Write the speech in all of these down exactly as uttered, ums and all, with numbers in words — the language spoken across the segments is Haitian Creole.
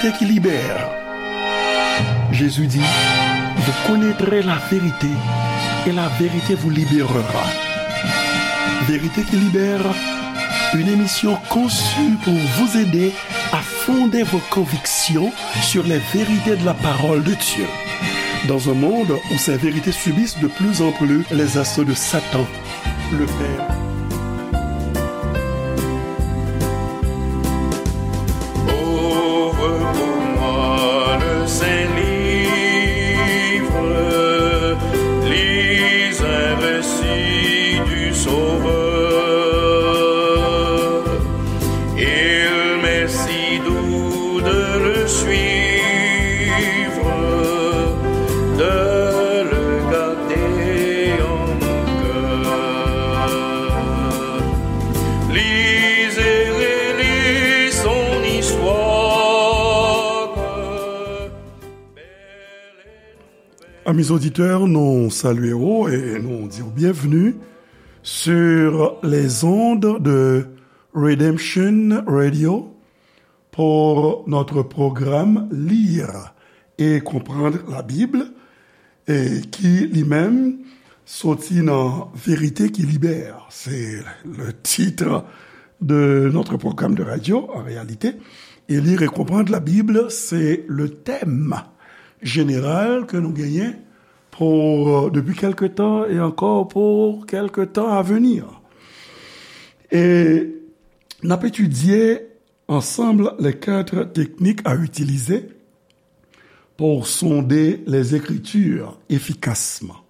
Vérité qui libère. Jésus dit, vous connaîtrez la vérité et la vérité vous libérera. Vérité qui libère, une émission conçue pour vous aider à fonder vos convictions sur les vérités de la parole de Dieu. Dans un monde où ces vérités subissent de plus en plus les assauts de Satan, le Père. Ouvre pour moi le Saint-Livre, lis un récit du Sauveur. Il m'est si doux de le suivre, de le garder en mon cœur. Lis et relis son histoire. Amis auditeurs, nous saluons et nous disons bienvenue sur les ondes de Redemption Radio pour notre programme Lire et comprendre la Bible, et qui lui-même sorti dans Vérité qui libère. C'est le titre de notre programme de radio, en réalité. Et Lire et comprendre la Bible, c'est le thème général que nous gagnons pour, euh, depuis quelque temps et encore pour quelque temps à venir. Et n ap etidye ansanm les quatre techniques à utiliser pour sonder les Écritures efficacement.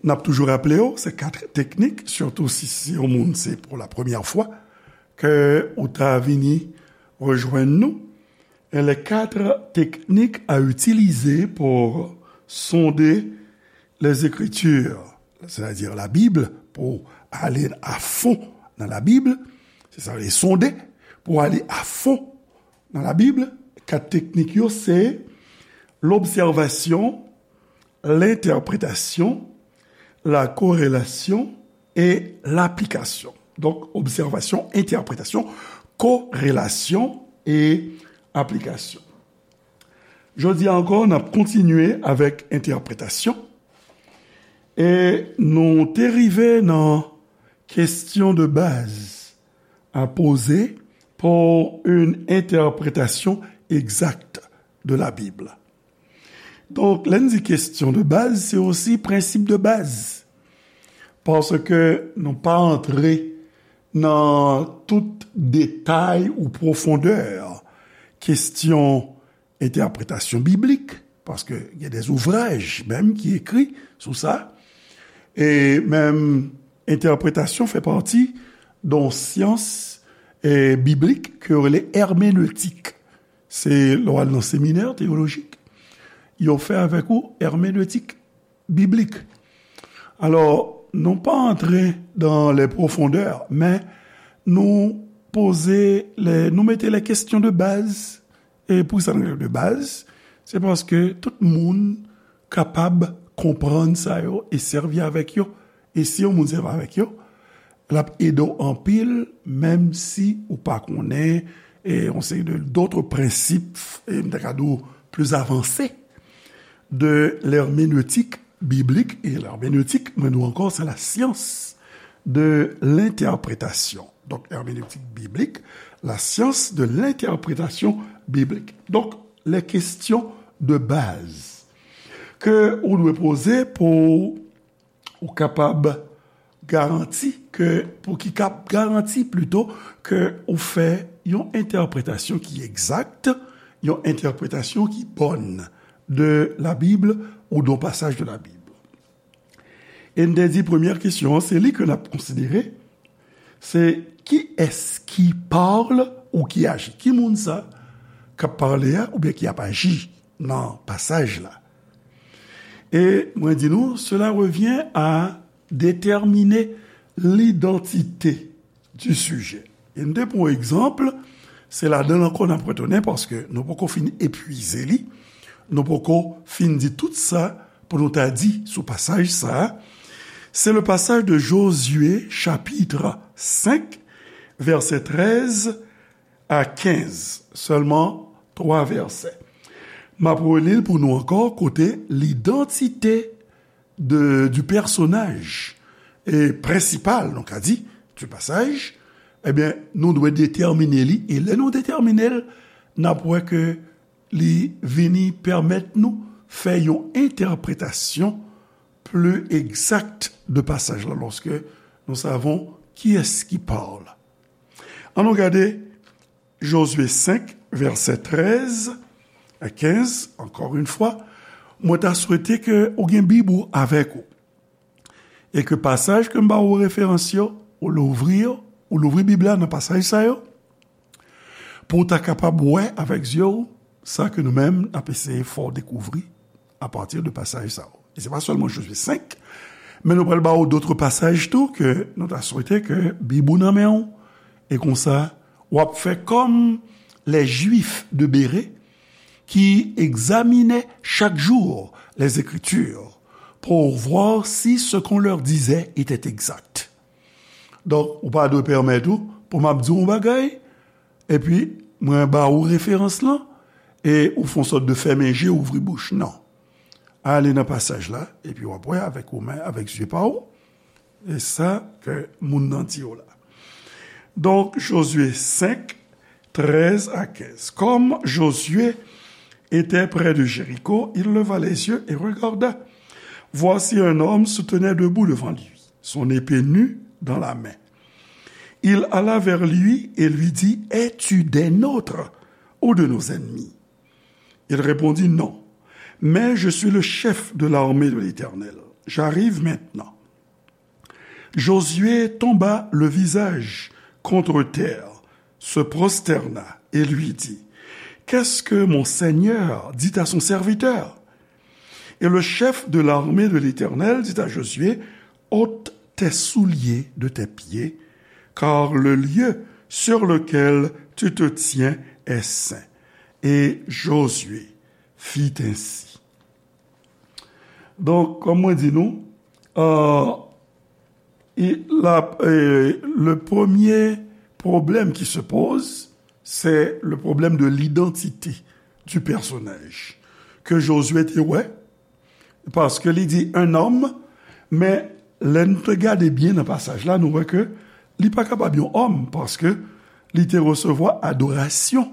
N ap toujou raple w, se kat teknik, sitou si se yon moun, se pou la premyè fwa ke ou ta vini rejwenn nou. Et les quatre techniques à utiliser pour sonder les Écritures, c'est-à-dire la Bible, pour aller à fond dans la Bible, c'est ça, les sonder, pour aller à fond dans la Bible, kat teknik yo, se l'observation, l'interprétation, la corrélation et l'application. Donk, obsèvasyon, entèpretasyon, korelasyon e aplikasyon. Jodi a ankò, n ap kontinye avèk entèpretasyon. E nou te rive nan question de base à poser pour une interprétation exacte de la Bible. Donk, lè n di question de base, se osi prensip de baz. Paske nou pa antre nan tout detay ou pwofondè kesyon entèpretasyon biblik, paske gen de zouvraj menm ki ekri sou sa. E menm entèpretasyon fè pati de yon syans, e, biblik ke yo rele èmenetik. Se lè w al nan seminè teyolojik, yo fè avèk ou èmenetik biblik. Alò, nou pa antre dans les profondeurs, men nou poze, lè, nou mete les questions de base. E poukisa nou rele de baz? Se paske tout moun kapab konprann sa yo e sèvi avèk yo. E si yon moun sèvi avèk yo, l ap ede w anpil, menm si ou pa konnen, e, yon seri de, d'autres principes, e, m ta ka di w, plus avancés de l'herméneutique biblique. E lèmenetik, mwen di w ankò, se la science de l'interprétation. Donk, herméneutique biblique, la science de l'interprétation biblique. Donk, les questions de base ke ou dwe poze pou ou kapab garanti ke, pou ki kab garanti plito ke ou fè yon entèpretasyon ki egzak, yon entèpretasyon ki bòn de la Bible ou d'un passage de la Bible. E n te di premyè kesyon an, se li ke n ap konsidere, se qui est-ce qui parle ou qui agit? Ki moun sa k ap pale a oubyen ki ap aji nan pasaj la? E mwen di nou, cela revient à déterminer l'identité du sujet. E n te pran yon egzanp, se ladan l ankò n ap retounen paske nou poko fin epwize li, nou poko fin di tout sa pou nou ta di sou pasaj sa a. C'est le passage de Josué, chapitre cinq, verset treize à quinze. Seulement twa vèsè. M ap reli l pou nou ankò, kote lidantite de, du personnage, e prensipal, nou ka di, du passage, ebyen, nou dwe detèmine li, e lè nou detèmine l, n ap wè ke li vini pèmèt nou fè yon entèpretasyon pli egzak de pasaj la, lòske nou savon kiyès ki parle. Ann nou gade Jozye senk, vèsè trèz a kenz, encore une fois, mwen ta swete ke ou gen Bib ou avèk ou. E ke pasaj ke m ba ou referans yo, ou louvri yo, ou louvri Bib la nan pasaj sa yo, pou w ta kapab wè avèk zye w sa ke nou menm n ap eseye fè w dekouvri apati de pasaj sa yo. E se pa sèlman Jozye senk, men nou pral ba w dòt pasaj tou ke nou ta swete ke Bib ou nan men w, e konsa w ap fè kòm les Juifs de Bérée qui examinaient chaque jour les Écritures pour voir si ce qu'on leur disait était exact. Donk, ou pa dwe pèmèt ou pou m ap di w yon bagay, epi mwen ba ou referans lan, e ou fè yon sòt de fèmen je, ouvri bouch. Non. Ale nan pasaj la, epi w ap wè avèk ou menm, avèk zye pa w, e sa ke moun nan di w la. Donc, Josué cinq, treize à quinze. Comme Josué était près de Jéricho, il leva les yeux et regarda. Voici un homme se tenait debout devant lui, son épée nue dans la main. Il alla vers lui et lui dit, es-tu des nôtres ou de nos ennemis ? Il répondit, non, mais je suis le chef de l'armée de l'Éternel. J'arrive maintenant. Josué tomba le visage contre terre, se prosterna et lui dit, qu'est-ce que mon Seigneur dit à son serviteur ? Et le chef de l'armée de l'Éternel dit à Josué, ôte tes souliers de tes pieds, car le lieu sur lequel tu te tiens est saint. Et Josué fit ainsi. Donk, kòm mwen di nou, euh, i- la- euh, le premier problème qui se pose, c'est le problème de l'identité du personnage. Ke Josué te wè, paske li di un homme, men lè n te gade byen nan pasaj la, nou wè ke li pa kapab yon òm, paske li te resevwa adorasyon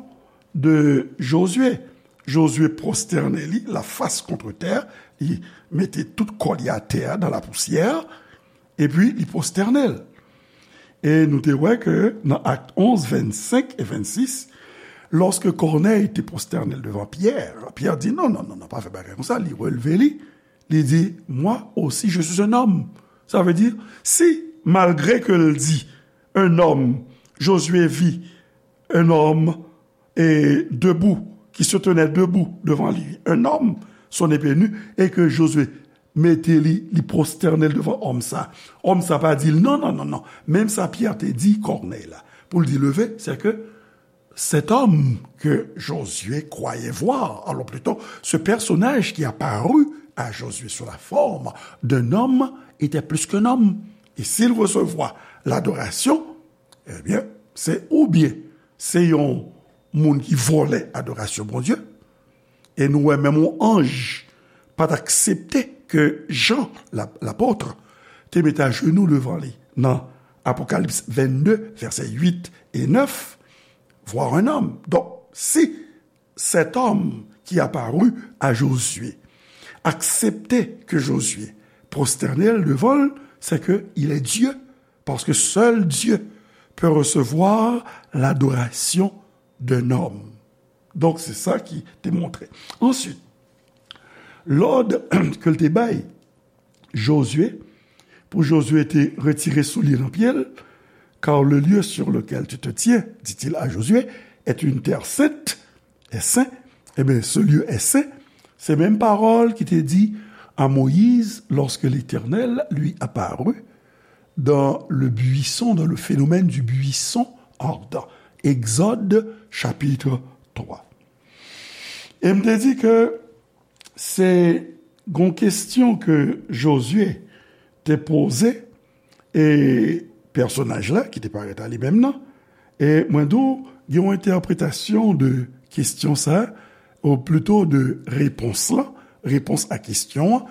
de Josué. Josué pwostène li, la fas kontre tè, li mete tout kò li atè, dans la poussière, epi li pwostène l. E nou te wè ke nan Actes onze, vingt-cinq et vingt-six, lorsque Corneille te prosterne devant Pierre, Pierre di, non, non, non, non, pa fè bagay konsa, li releve li, li di, moi aussi, je suis un homme. Sa vle di, si, malgre ke l di, un homme, Josué vit un homme, et debout, qui se tenait debout devant lui, un homme, son épée nue, et que Josué mete li, li pwostène l devan òm sa. Òm sa pa di l, non, non, non, non. Menm sa Pyè te di Kònèy la. Pou l di leve, c'est que cet homme que Josué croyait voir, alors plutôt, ce personnage qui apparut à Josué sous la forme d'un homme était plus qu'un homme. Et s'il recevait l'adoration, ebyen, se oubyen se yon moun ki vòlè adorasyon Bondye, e nou wè menm yon anj pa t aksepte ke Jan, la- lapòt, te mete ajenou devan li nan Apokalips vennde, vèsè uit e nèf, voir un homme. Donk, si cet homme qui apparut à Josué acceptait que Josué prosterne devan l, c'est que il est Dieu, parce que seul Dieu peut recevoir l'adoration d'un homme. Donk, se sa ki te montre. Answit, lòd ke l te bay Josué, pou Josué te retire soulye nan pye l, car le lieu sur lequel tu te tiens, dit-il à Josué, est une terre sainte, est saint, eh bien, ce lieu est saint. Se menm pawòl ki te di a Moyiz lorsque l'Éternel lui apparut dans le buisson, dans le phénomène du buisson ardent. Egzòd, chapitre trois. E m te di ke se gon kesyon ke Josué te poze, e pèsonaj la ki te parèt a li menm nan, e mwen di w, gen yon entèpretasyon de kestyon sa, ou plito de repons lan, repons a kestyon an,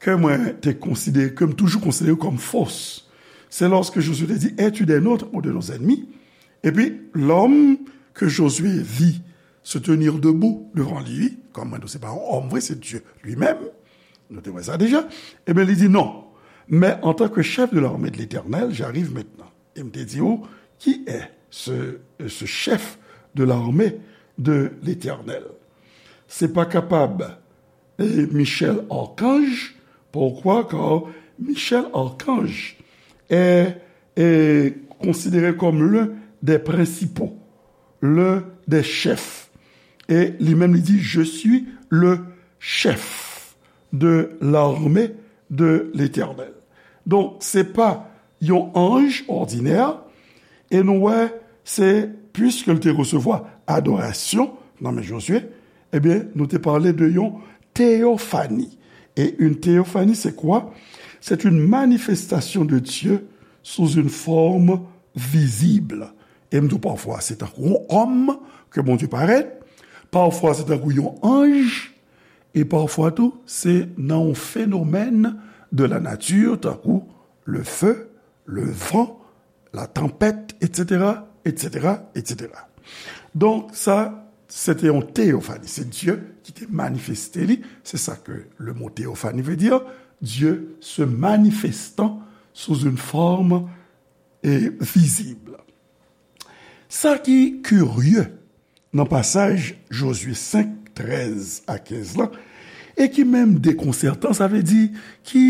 ke mwen te konsidere, ke m toujou konsidere kòm fos. C'est lorsque Josué te di, es-tu des nôtres ou de nos ennemis? Epi, l'homme que Josué vit se tenir debout devant lui, kòm mwen, se pa yon òm vre, se Dieu lui-même, nou te wè sa deja, ebyen, li di, non, mais en tant que chef de l'armée de l'Éternel, j'arrive maintenant. E m te di ou, qui est ce, ce chef de l'armée de l'Éternel? Se pa kapab e Michel Archange. Pourquoi? Car Michel Archange est, est considéré comme l'un des principaux, l'un des chefs. E li menm li di, je suis le chef de l'armée de l'Éternel. Donk, se pa yon anj òdinè, e nou wè, se, puiske l te resevwa adorasyon nan men Jozye, ebyen, nou te pale de yon teyofani. Et une théophanie, c'est quoi? C'est une manifestation de Dieu sous une forme visible. E m di w, pafwa, se tankou yon òm ke Bondye parèt, pafwa, se tankou yon anj, e pafwa tou, se nan yon fenomèn de la nature, tankou le feu, le vent, la tempête, et cetera, et cetera, et cetera. Donk, sa, se te yon teyofani. Se Dye ki te manifeste li. Se sa ke le mo teyofani vle di. Dieu se manifestant sous une forme, eh, visible. Sa ki kirye nan pasaj Jozye senk, trèz a kenz lan, e ki menm dekonsètan, sa vle di ki,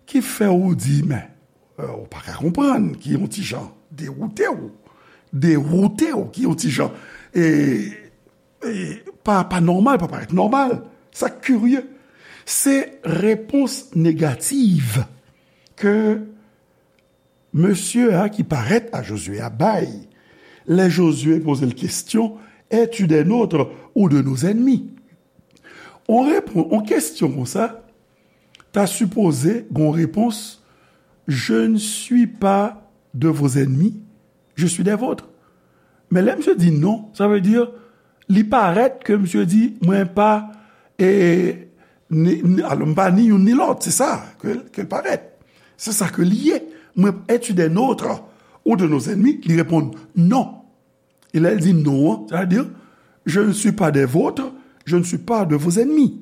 ki fè w di, men, eh, ou pa ka konprann, ki yon ti jan dewoute w, dewoute w, ki yon ti jan, e, e, pa, pa nòmal, pa parèt nòmal. Sa kirye. Se repons negatif ke mesye a ki parèt a Jozye a bay, lè Jozye poze l kesyon, es-tu des nôtres ou de nos ennemis? On repon, on kestyon konsa, ta sipoze gon repons, je ne suis pas de vos ennemis, je suis des vôtres. Men lè misye di non, sa vle di, li parèt ke misye di, mwen pa, e, ni, ni, alò, m pa ni youn ni lòt, se sa ke, ke l parèt. Se sa ke li ye. Mwen, es-tu des nôtres ou de nos ennemis? Li reponn non. E lè l di non an, sa vle di, je ne suis pas des vôtres, je ne suis pas de vos ennemis.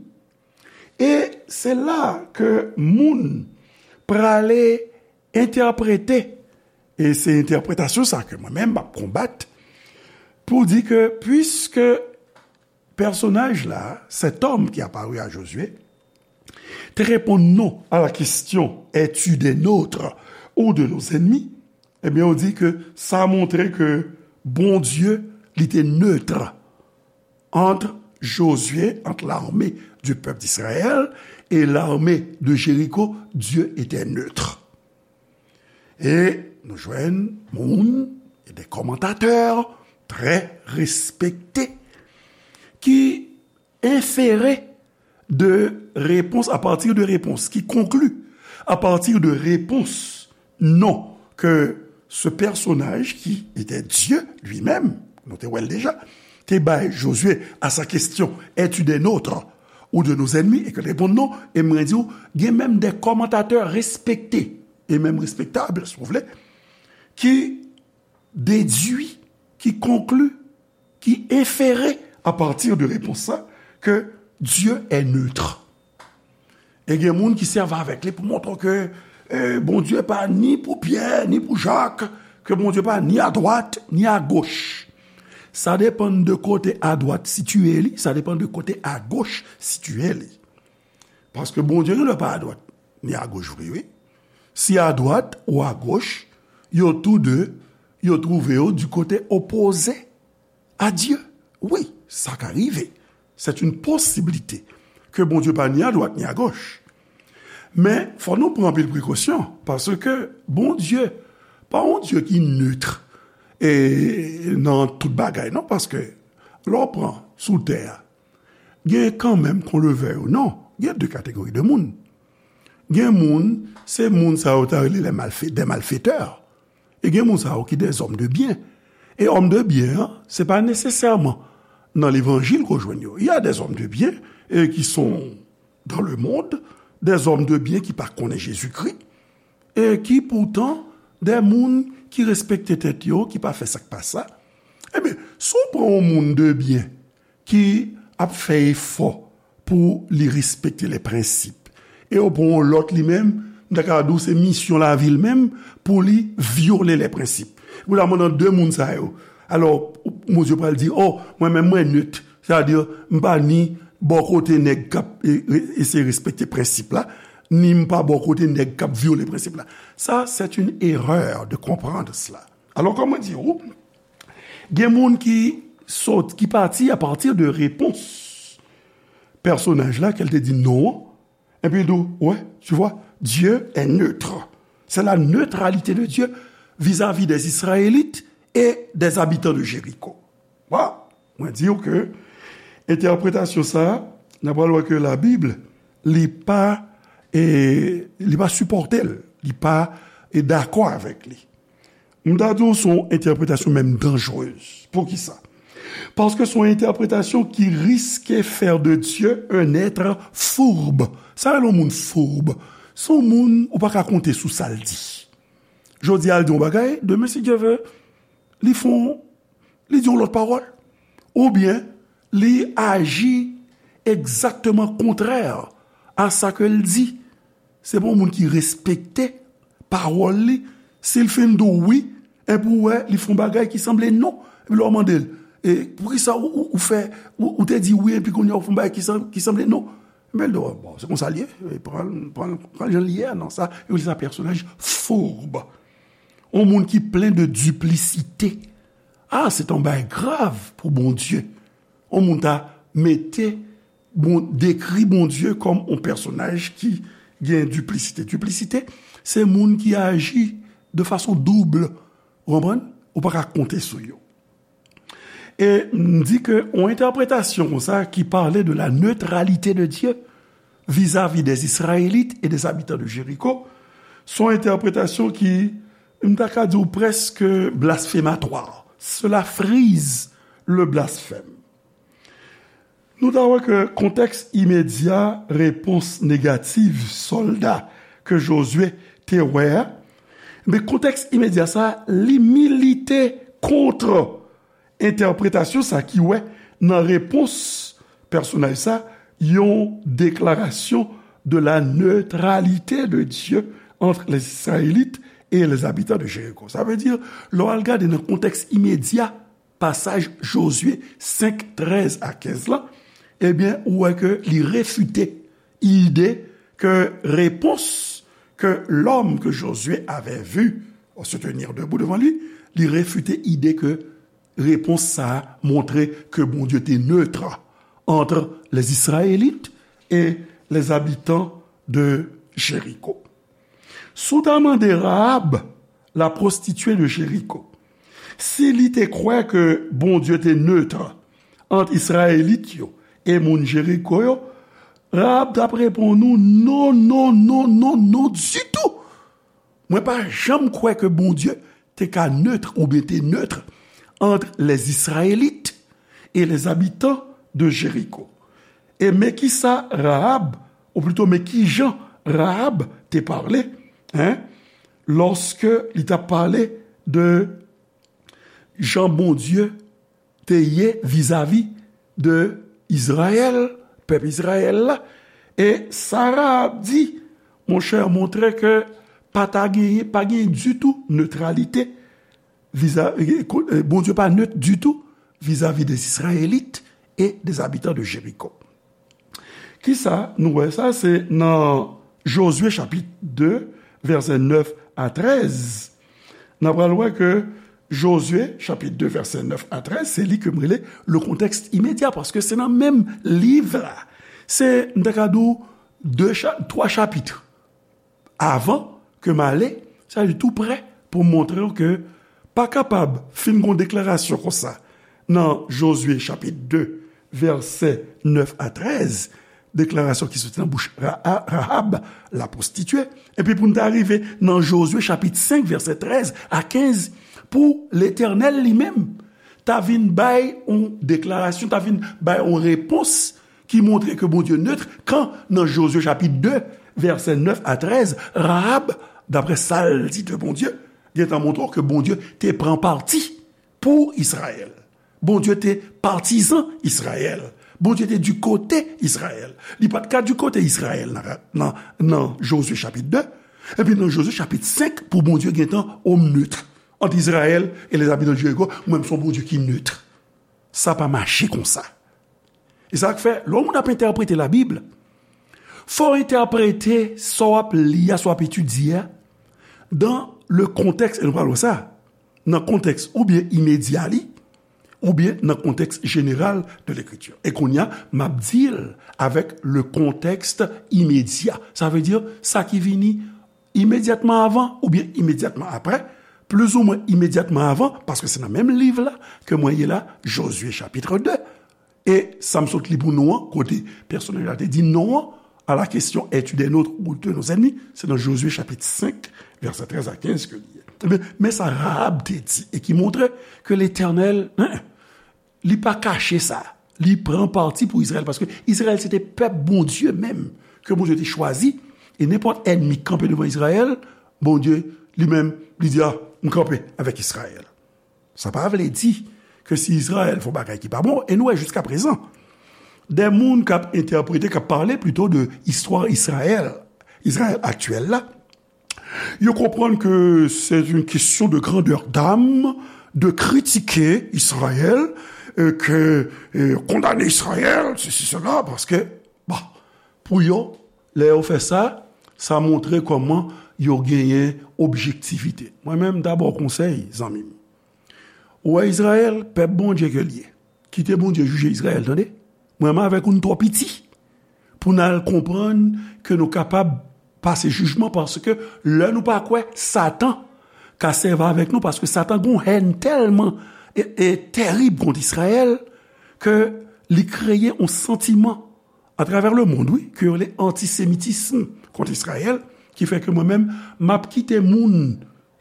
E se la ke moun prale entèprete, e se entèpretasyon sa ke mwen menm m ap konbat, pou di ke puiske pèsonaj la, cet homme qui apparut à Josué, te reponn non a la kestyon, es-tu des nôtres ou de nos ennemis? Ebyen, ou di ke sa montre ke Bondye, li te neutre entre Josué, entre l'armée du peuple d'Israël et l'armée de Jéricho, Dieu était neutre. E nou jwenn moun, e de kòmantatè trè respekte, ki enfere de repons, à partir de repons, ki konkli à partir de repons non ke ce personnage qui était Dieu lui-même, nou te wè l deja, te bay Jozye a sa kestyon, es-tu des nôtres ou de nos ennemis, e ke l reponn non, e mwen di w, gen menm de kòmantatè respekte, e menm respektab, si w vle, ki dedui, ki konkli, ki enfere à partir de repons sa ke Dieu est neutre. E gen moun ki sèvi avèk li pou montre ke, eh, Bondye pa ni pou Pyè, ni pou Jak, ke Bondye pa ni adwat, ni agoch. Sa depann de kote adwat sitiye li, sa depann de kote agoch sitiye li. Paske Bondye gen dwa pa adwat, ni agoch vre, wi. Si adwat ou agoch, yo tou de, yo twouve yo di kote opoze a Dye. Wi, sa ka rive. C'est une possibilité ke Bondye pa ni adwat ni agoch. Men, fò nou pran anpil prekosyon, paske Bondye pa yon Dye ki neutre e nan tout bagay, non, paske lè w pran sou tè a, gen kanmenm kon levè yo, non, gen de kategori de moun. Gen moun, se moun sa yo ta rele les malfe-, des malfaiteurs. E gen moun sa yo ki des hommes de bien. E òm de byen an, se pa nesesèman nan levanjil ke w jwenn yo. Il y a des hommes de bien, eh, qui sont dans le monde, des hommes de bien ki pa konnen Jezikri, e ki poutan de moun ki respekte tèt yo, ki pa fè sa k pa sa. Ebyen, si w pran yon moun de byen ki ap fè efò pou li respekte lè prensip, e w pran yon lòt li menm, m ta ka di w se misyon lavi l menm pou li vyole lè prensip. Ou ta mande de moun sa yo. Alò, Bondye pral di, o, mwen menm mwen net. Sètadi, m pa ni bò kote nèg k ap, e, re-, eseye respekte prensip la, ni m pa bò kote nèg k ap vyole prensip la. Sa, c'est une erreur de comprendre cela. Alò, kòm mwen di w, gen moun ki sot, ki pati a partir de repons pèsonaj la, ke l te di non an, epi l di w, ouais, tu vois, Dieu est neutre. C'est la neutralité de Dieu vis-à-vis des Israélites et des habitants de Jéricho. Wa, mwen di w ke entèpretasyon sa a, n ap pral wè ke Labib, li pa, e, li pa sipòte l, li pa, e, dakò avèk li. M ta di w se yon entèpretasyon menm danjrez. Poukisa? Paske se yon entèpretasyon ki riske faire de Dieu un être fourbe. Sa rele yon moun fourbe? Se yon moun ou pa ka konte sou sa l di. Jodi a, l di yon bagay, demen, si Dye vle, li fè yon, li di yon lòt pawòl. Oubyen, li aji egzakteman kontrè a sa ke l di. Se pa yon moun ki respekte pawòl li. Si l fin di w wi, epi w wè, li fè yon bagay ki sanble non. Epi lè w mande l, e, poukisa ou, ou, ou fè, ou, ou te di wi, epi kounye a w fè yon bagay ki san-, ki sanble non? Epi l di w, bon, se konsa l ye, e, pran, pran, pran jan l ye a, non, sa, yo rele sa pèsonaj fourbe. Yon moun ki plen de diplisite. Ah, se yon bagay grav pou Bondye. Yon moun ta mete, bon, dekri Bondye kòm yon pèsonaj ki gen diplisite. Diplisite, se moun ki aji de fason doub. Ou konprann? Ou pa ka konte sou yo. E m di ke yon entèpretasyon konsa ki pale de la neutralité de Dieu vis-à-vis des Israélites et des habitants de Jéricho, se yon entèpretasyon ki, m ta ka di w, prèske blasfématoire. Cela frise le blasphème. Nou ta wè ke kontèks imedya repons negatif sòlda ke Jozye te wè a, men kontèks imedya sa a, li milite kont entèpretasyon sa ki wè nan repons pèsonaj sa yon déclaration de la neutralité de Dieu entre les Israélites et les habitants de Jéricho. Sa vle di, lè w al gade nan kontèks imedya pasaj Jozye senk, trèz a kenz la, ebyen, ou wè ke li refite ide ke repons que l'homme que Josué avait vu se tenir debout devant lui, li refite ide ke repons sa a montre ke Bondye te neutre entre les Israélites et les habitants de Jéricho. Si w ta mande Rahab, la prostituée de Jéricho, si li te kwè ke Bondye te neutre ant Izrayelit yo e moun Jeriko yo, Rahab t ap reponn ou, non, non, non, non, non ditou. Mwen pa janm kwè ke Bondye te ka neutre oubyen te neutre entre les Israélites et les habitants de Jéricho. E men kisa Rahab, ou plito men kijan Rahab te pale, hein, lòske li t ap pale de jan Bondye te ye vizavi de Izrayèl, pèp Izrayèl la. E sa Rahab di, monchè, montre ke pa ta genyen, pa genyen ditou netralite viza-, e, ko-, e, Bondye pa net ditou vizavi des Israélites et des habitants de Jéricho. Kisa nou wè sa? Se nan Jozye chapit de, vèsè nèf a trèz. N ap pral wè ke Jozye chapit de, vèsè nèf a trèz, se li ke m rele le contexte immédiat, paske se nan menm liv la. Se, m ta ka di w, de cha-, twa chapit avan ke m ale, sa vle di tou prè pou m montre w ke pa kapab fin gon deklarasyon konsa nan Jozye chapit de, vèsè nèf a trèz, deklarasyon ki soti nan bouch Ra-, Rahab, la prostituée, epi pou n ta rive nan Jozye chapit senk, vèsè trèz a kenz, pou Letènèl li menm ta vin bay yon deklarasyon, ta vin bay yon repons ki montre ke Bondye nèt, kan nan Jozye chapit de, vèsè nèf a trèz, Rahab, daprè sa l di de Bondye, gentan montre w ke Bondye te pran pati pou Izrayèl. Bondye te patizan Izrayèl. Bondye te di kote Izrayèl. Li pa t ka di kote Izrayèl nan, nan, nan Jozye chapit de. Epi nan Jozye chapit senk, pou Bondye gentan omnèt ant Izrayèl e les habitants de Jéricho, mwen, m se yon Bondye ki nèt. Sa pa mache konsa. E sa k fè, lè yon moun ap entèprete Labib, fò w entèprete sa w ap li a, sa w ap etidye a, dans le contexte, e nou pral wè sa, nan kontèks oubyen imedya li, oubyen nan kontèks jeneral de Lekriti. E kounye a, m ap di l avèk le contexte immédiat. Sa vle di, sa ki vini imedyatman avan oubyen imedyatman apre, plizoumwen imedyatman avan, paske se nan menm liv la ke mwen ye la, Jozye chapit de. E sa m sot li pou nou an, kote pèsonaj la te di non an, à la question, es-tu des nôtres ou de nos ennemis? Se nan Jozye chapit senk, vèsè trèz a kenz ke li ye. Ebyen, men sa Rahab te di, e ki montre ke Letènèl, en, li pa kache sa. Li pran pati pou Izrayèl, paske Izrayèl se te pèp Bondye menm, ke Bondye te chwazi, e nenpòt ènmi k kanpe devan Izrayèl, Bondye li menm, li di, a, m kanpe avèk Izrayèl. Sa pa vle di ke si Izrayèl fè yon bagay ki pa bon, e nou wè jiska prezan, de moun k ap entèprete, k ap pale plito de istwa Izrayèl, Izrayèl aktyèl la, yo konprann ke c'est une question de grandeur d'âme de critiquer Israël, euh, que, euh, condamner Israël, ceci, cela, paske, bon, pou yo, lè yo fè sa, sa montre kòman yo genyen objektivite. Mwen menm, m ta ba w konsèy, zanmi m. Ou wè Izrayèl, pèp Bondye ke l ye. Kite Bondye jije Izrayèl, tande. Mwen menm avèk ou, n twò piti pou n al konprann ke nou kapab pase jijman, paske lè nou pa kwè, Satan ka sèvi avèk nou, paske Satan gen yon hèn tèlman e, e tèrib kont Izrayèl ke li kreye yon santiman atravè lemonn, wi, ke yo rele antisemitism kont Izrayèl, ki fè ke mwen menm, m ap kite moun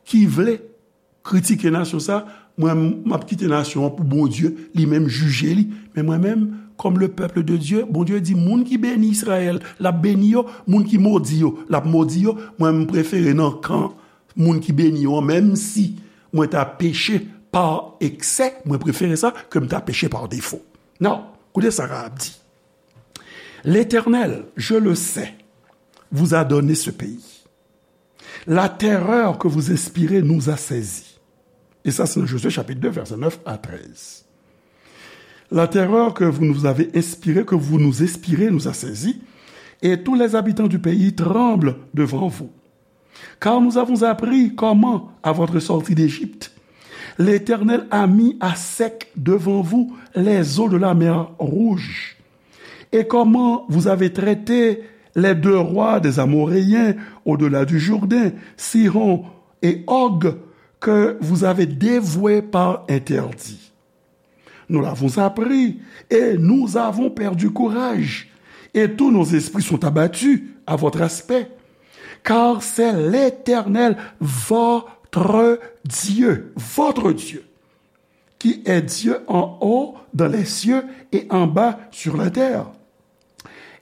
ki vle kritike nasyon sa, mwen, m ap kite nasyon an pou Bondye li menm jije li. Men mwen menm, comme le peuple de Dieu, Bondye di, moun ki beni Izrayèl, l ap beni yo, moun ki modi yo, l ap modi yo. Mwen, m prefere nan kan moun ki beni yo an, menm si mwen ta peche pa eksè, mwen prefere sa ke m ta peche pa defo. Non, koute sa Rahab di. L'Éternel, je le sais, vous a donné ce pays. La terreur que vous inspirez nous a saisis. E sa, se nan Jozye chapit de, vèsè nèf a trèz. La terreur que vous nous avez inspirée, que vous nous inspirez, nous a saisis, et tous les habitants du pays tremblent devant vous. Car nous avons appris comment, à votre sortie d'Égypte, l'Éternel a mis à sec devant vous les eaux de la mer Rouge, et comment vous avez traité les deux rois des Amoréens au-delà du Jourdain, Sihon et Og, que vous avez dévoués par interdit. Nous l'avons appris, et nous avons perdu courage, et tous nos esprits sont abattus à votre aspect. Car c'est l'Éternel, votre Dieu, votre Dieu, qui est Dieu en haut dans les cieux et en bas sur la terre.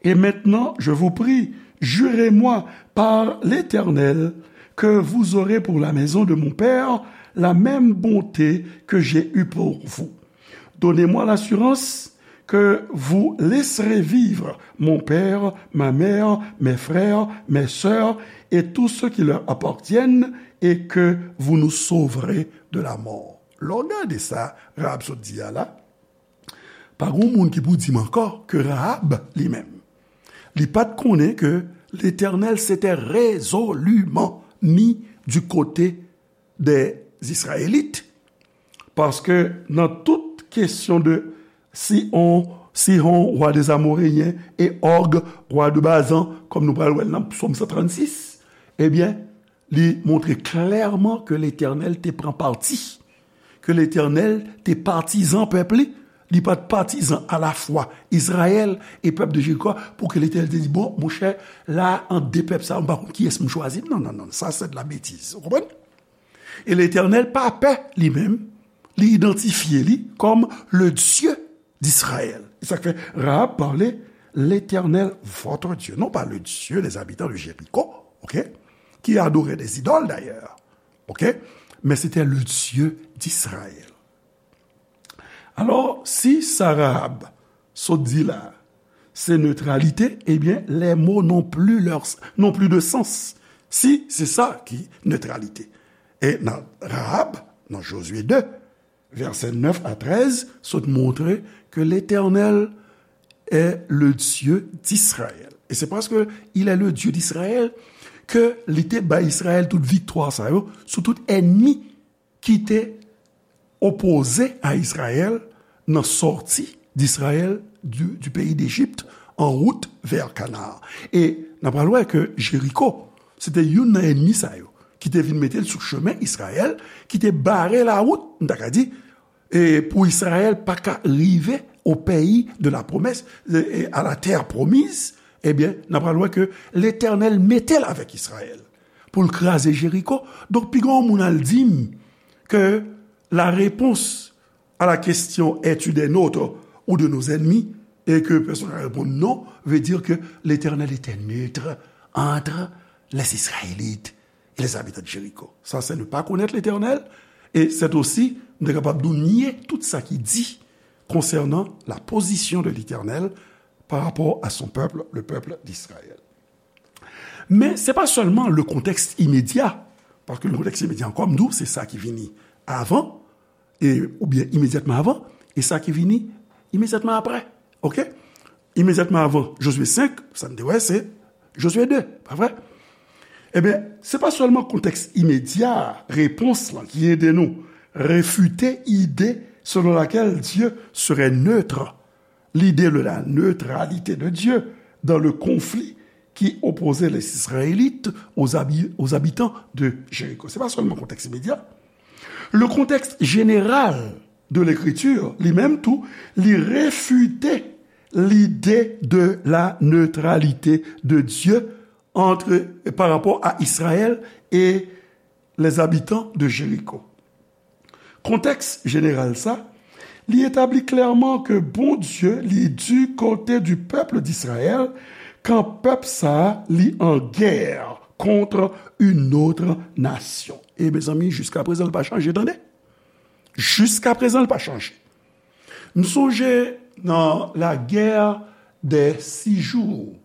Et maintenant, je vous prie, jurez-moi par l'Éternel que vous aurez pour la maison de mon père la même bonté que j'ai eue pour vous. Donnez-moi l'assurance que vous laisserez vivre mon père, ma mère, mes frères, mes sœurs et tous ceux qui leur appartiennent, et que vous nous sauverez de la mort. Lè w gade sa Rahab sot di a la, pa gen moun ki pou di m ankò ke Rahab, li menm, li pa t konnen ke Letènèl s'était résolument mis du côté des Israélites, paske nan tout kesyon de Sihon, Sihon, wa dè Amoreyen, e Og, wa dè Bazan, kòm nou pral wè l nan Sòm san trannsis, ebyen, li montre klèman ke Letènèl te pran pati, ke Letènèl te patizan pèp li, li pa t patizan alafwa Izrayèl e pèp de Jeriko, pou ke Letènèl te di, bon, monchè, la, ant de pèp sa yo, m pa konn kiyès m chwazi. Non, non, non, sa se de la betiz. Ou konprann? E Letènèl pa pè, li menm, li idantifye li kòm le Dieu d'Israël. E sa k fè Rahab pale, L'Éternel, votre Dieu, non pas le Dieu des habitants de Jéricho, ok, qui adoraient des idoles d'ailleurs, ok, mais c'était le Dieu d'Israël. Alò, si sa Rahab sot di la, se netralite, ebyen, les mots n'ont plus leur, n'ont plus de sens. Si, se sa ki netralite. E nan Rahab, nan Josué deux, vèsè nèf a trèz, sot montre ke Letènèl est le Dieu d'Israël. E se paske il est le Dieu d'Israël ke li te bay Izrayèl tout viktwa sa yo sou tout ènmi ki te opoze a Izrayèl nan sòti d'Izrayèl du, du pays d'Égypte en route vers Canaan. E n ap pral wè ke Jeriko, se te youn nan ènmi sa yo ki te vin mete l sou chemen Izrayèl, ki te bare lawout, m ta ka di, e pou Izrayèl pa ka rive au pays de la promesse, e, e à la terre promise, ebyen, n ap pral wè ke Letènèl mete l avèk Izrayèl pou l kraze Jeriko. Donk, piga yon moun al di m ke la réponse à la question es-tu des nôtres ou de nos ennemis, et que personne ne répond non, veut dire que l'Éternel était neutre entre les Israélites et les habitants de Jéricho. Ça, c'est ne pas connaître l'Éternel, et c'est aussi nou kapab nou nye tout sa ki di concernant la position de l'Éternel par rapport à son peuple, le peuple d'Israël. Men se pa sèlman le contexte immédiat, paske le contexte immédiat ankò, m di w, se sa ki vini avan, e, oubyen imedyatman avan, e sa ki vini imedyatman apre. Ok? Imedyatman avan Josué senk, sa n te wè, se Josué de, pa vre? Ebyen, se pa sèlman kontèks imedya repons lan ki ede nou refite ide selon laquelle Dieu serait neutre, l'idée de la neutralité de Dieu dans le conflit qui opposait les Israélites aux, habi- aux habitants de Jéricho. Se pa sèlman kontèks imedya. Le contexte général de l'écriture, li menm tou, li refite l'idée de la neutralité de Dieu entre, par rapport à Israël et les habitants de Jéricho. Kontèks jeneral sa, li etabli klèman ke Bondye li du côté du peuple d'Israël kan pèp sa a li an gè contre une autre nation. E mezanmi, jiskaprezan, l pa chanje, tande. Jiskaprezan, l pa chanje. M sonje nan la guerre des six jours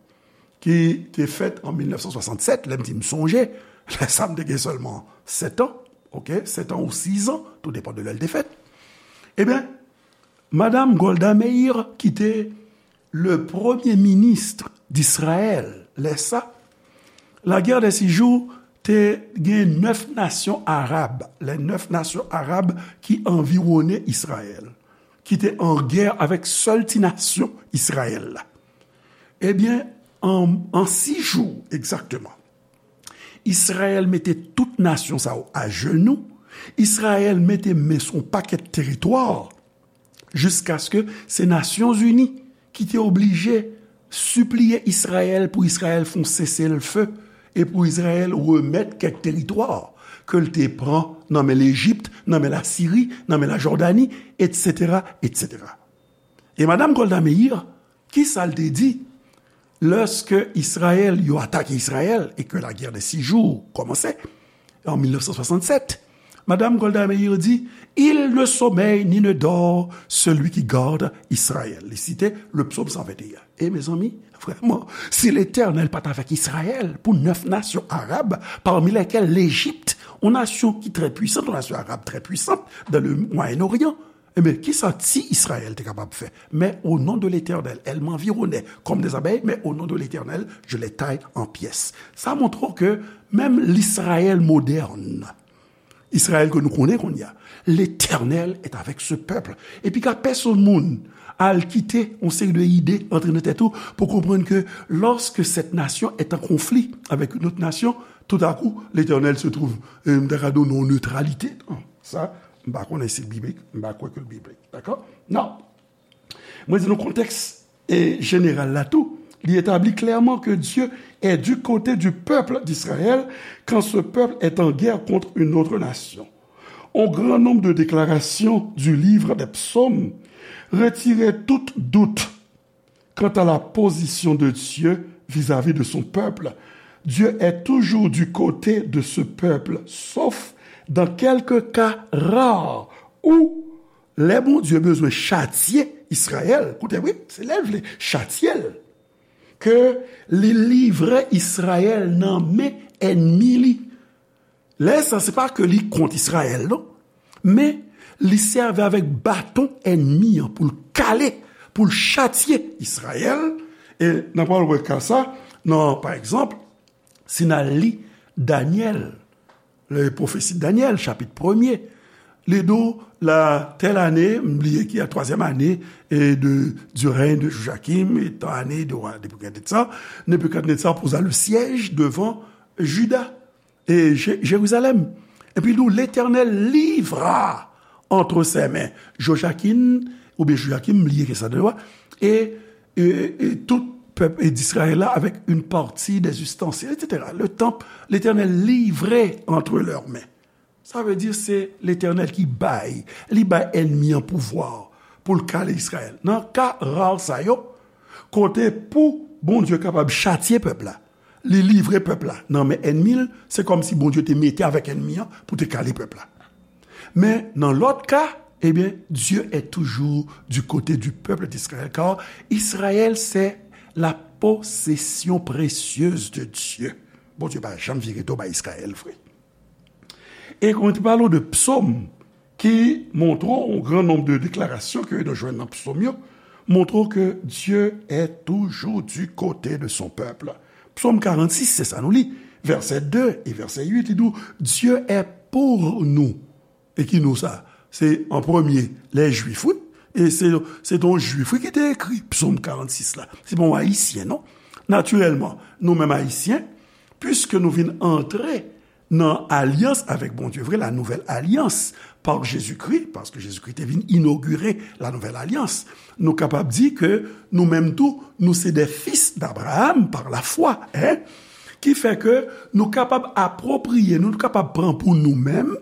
ki te fèt an mil nèf san swasannsèt, lè m di m sonje, lè sa m te gen sèlman sèt an, ok, sèt an ou sis an, tou depann de lè l te fèt. Ebyen, Madam Golda Meir, ki te le premye minis d'Israël lè sa, la guerre des six jours te gen nèf nasyon arab, les neuf nations arabes ki anviwone Izrayèl, ki te an gè avèk sèl ti nasyon Izrayèl la. Ebyen, an, an sis jou egzakteman, Izrayèl mete tout nasyon sa yo ajenou, Izrayèl mete men sou yon pakèt teritwa, jiskaske se Nasyonzini ki te oblije sipliye Izrayèl pou Izrayèl fè yon seselfe e pou Izrayèl remèt kèk teritwa ke l te pran nan men Lejip, nan men Lasiri, nan men Lajòdani, etsetera, etsetera. E Madam Golda Meir, ki sa l te di lèske Izrayèl, yo atake Izrayèl e ke la guerre des six jours kòmanse an mil nèf san swasannsèt? Madam Golda Meir di, il ne sommeille ni ne dort celui qui garde Israël. Li site le psaume cent vingt et un. E mezanmi, vrèman, si Letènèl pa t avèk Izrayèl pou nèf nasyon arab, parmi lesquelles l'Égypte, yon nasyon ki trè pwisan, yon nasyon arab trè pwisan dans le Moyen-Orient, ebyen, kisa ti Izrayèl te kapab fè? Mais au nom de l'Éternel, elle m'environnait comme des abeilles, mais au nom de l'Éternel, je les taille en pièces. Sa montre w ke menm Izrayèl modèn, Izrayèl ke nou konnen kounye a, l'Éternel est avec ce peuple. Epi ka pèsonn moun al kite yon seri de ide antre nan tèt ou pou konprann ke lorsque cette nation est en conflit avec une autre nation, tout à coup, l'Éternel se trouve, euh, m ta ka di w non, neutralité. Non, sa, m pa konnen si l biblik, m pa kwè ke l biblik. Dakò? Non. Mwen di nou kontèks, e, jeneral la tou, li etabli klèman ke Dieu est du côté du peuple d'Israël quand ce peuple est en guerre contre une autre nation. Un grand nombre de déclarations du livre des psaumes retiraient tout doute quant à la position de Dieu vis-à-vis de son peuple. Dieu est toujours du côté de ce peuple, sauf dans quelques cas rares où lè Bondye bezwen chatye Izrayèl, koute wi, se lè l vle chatye l, ke li livre Izrayèl nan men ènmi li. Lè sa, se pa ke li kont Izrayèl, non. Men, li sèvi avèk baton ènmi an pou l kale, pou l chatye Izrayèl. E n ap pral wè ka sa nan, pa egzanp, si n al li Danyèl, le pwofesi Danyèl, chapit premye, li di w, la tèl ane, m bliye ki a twazyèm ane, e de, du règne de Joachim, e tan ane de wa Nebikadnetza, Nebikadnetza poza le siège devant Juda e Je- Jérusalem. Epi li di w, Letènèl livra entre ses mains Jojakin, oubyen Jojakim, m bliye ki sa de lwa, e, e, e tout pèp e d'Israël la avec une partie des ustensiles, et cetera. Le temple, l'Éternel livrait entre leurs mains. Sa vle di se Letènèl ki bay, li bay ènmi an pouvwa pou l kale Izrayèl. Nan ka ra sa yo, kote pou Bondye kapab chatye pèp la, li livre pèp la nan men ènmi l, se kòmsi Bondye te mete avèk ènmi an pou te kale pèp la. Men nan lòt ka, ebyen, Dieu est toujours du côté du peuple d'Israël, car Israël, c'est la possession précieuse de Dieu. Bondye pa janm vire do bay Izrayèl, vre. E kon te pale de psaume, ki montre yon gran nonb de deklarasyon ke nou jwenn nan psaume yo, montre ke Dieu est toujours du côté de son peuple. Psaume quarante-six, se sa nou li, vèsè de e vèsè uit, li di w, Dieu est pour nous. E ki nou sa? Se an premye, lè Jwif, wi. E se, se yon Jwif, wi, ki te ekri Psaume quarante-six la. Se pa yon Ayisyen, non. Natirèlman, nou menm Ayisyen, piske nou vin antre nan alyans avèk Bondye vre, la nouvelle alliance par Jésus-Christ, paske Jezikri te vin inogire la nouvelle alliance. Nou kapab di ke nou menm tou, nou se des fils d'Abraham par la foi, en? Ki fè ke nou kapab apropriye, nou kapab pran pou nou menm,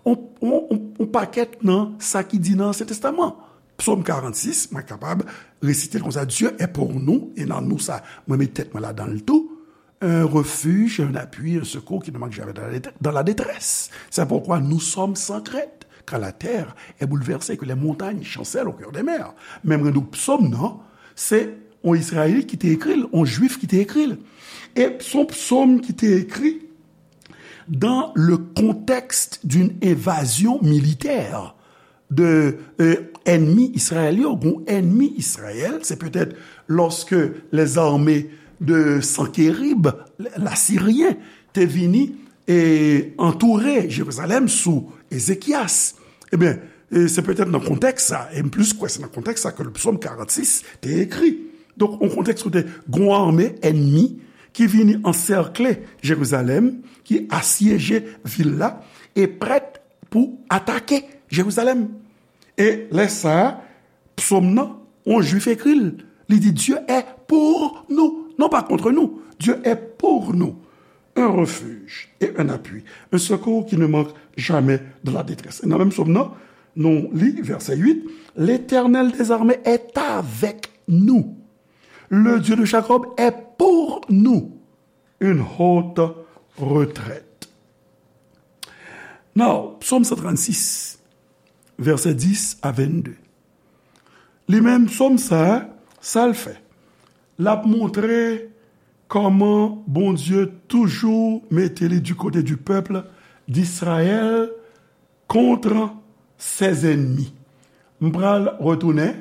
on, on, on, on pakèt nan sa ki di nan Ansyen Testaman. Psaume quarante-six, mwen kapab resite l konsa, Dieu est pour nous, e nan nou sa, mwen met tèt mwen ladan l tou, un refuge, un appui, un secours qui ne manque jamais dans la détresse. C'est pourquoi nous sommes sans crainte quand la terre est bouleversée, que les montagnes chancellent au cœur des mers. Menm jan nou psaume, non? Se yon Izrayelit ki te ekri l, yon Jwif ki te ekri l. E se yon psaume ki te ekri dans le contexte d'une invasion militaire de, euh, ennemis israéliens, ou ennemis Israël, c'est peut-être lorsque les armées de Sanchérib, l'Assyrien, te vini e antoure Jerizalèm sou Ezekyas. Ebyen, e se petèt nan kontèks sa, e m plis kwè se nan kontèks sa ke le psaume quarante-six te ekri. Donk, yon kontèks kote gon ame enmi ki vini ansèkle Jerizalèm, ki asyeje vil la, e prèt pou atake Jerizalèm. E lè sa a, psaume nan, yon Jwif ekri l. Li di, Dieu est pour nous, non pas contre nous. Dieu est pour nous. Un refuge et un appui, un secours qui ne manque jamais dans la détresse. E nan menm psaume nan, nou li, vèsè uit, L'Éternel des armées est avec nous. Le Dieu de Jacob est pour nous une haute retraite. Now, psaume cent trente-six, vèsè dis a vennde. Li menm, psaume sa, sa l fè? L ap montre kòman Bondye toujou mete li du côté du peuple d'Israël contre ses ennemis. M pral retounen,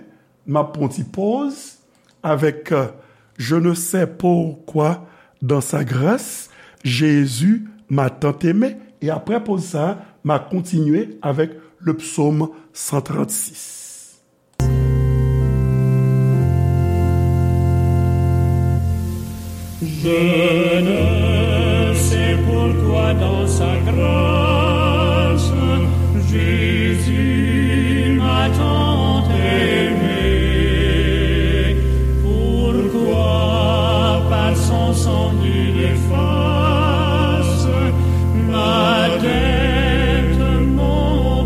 m ap pran ti pòz avèk, euh, Je ne sais pourquoi dans sa grâce, Jésus m'a tant aimé. E aprè pòz sa, m a kontinye avèk le psaume cent trente-six. Je ne sais pourquoi dans sa grâce, Jésus m'a tant aimé. Pourquoi par son sang il efface ma dette, mon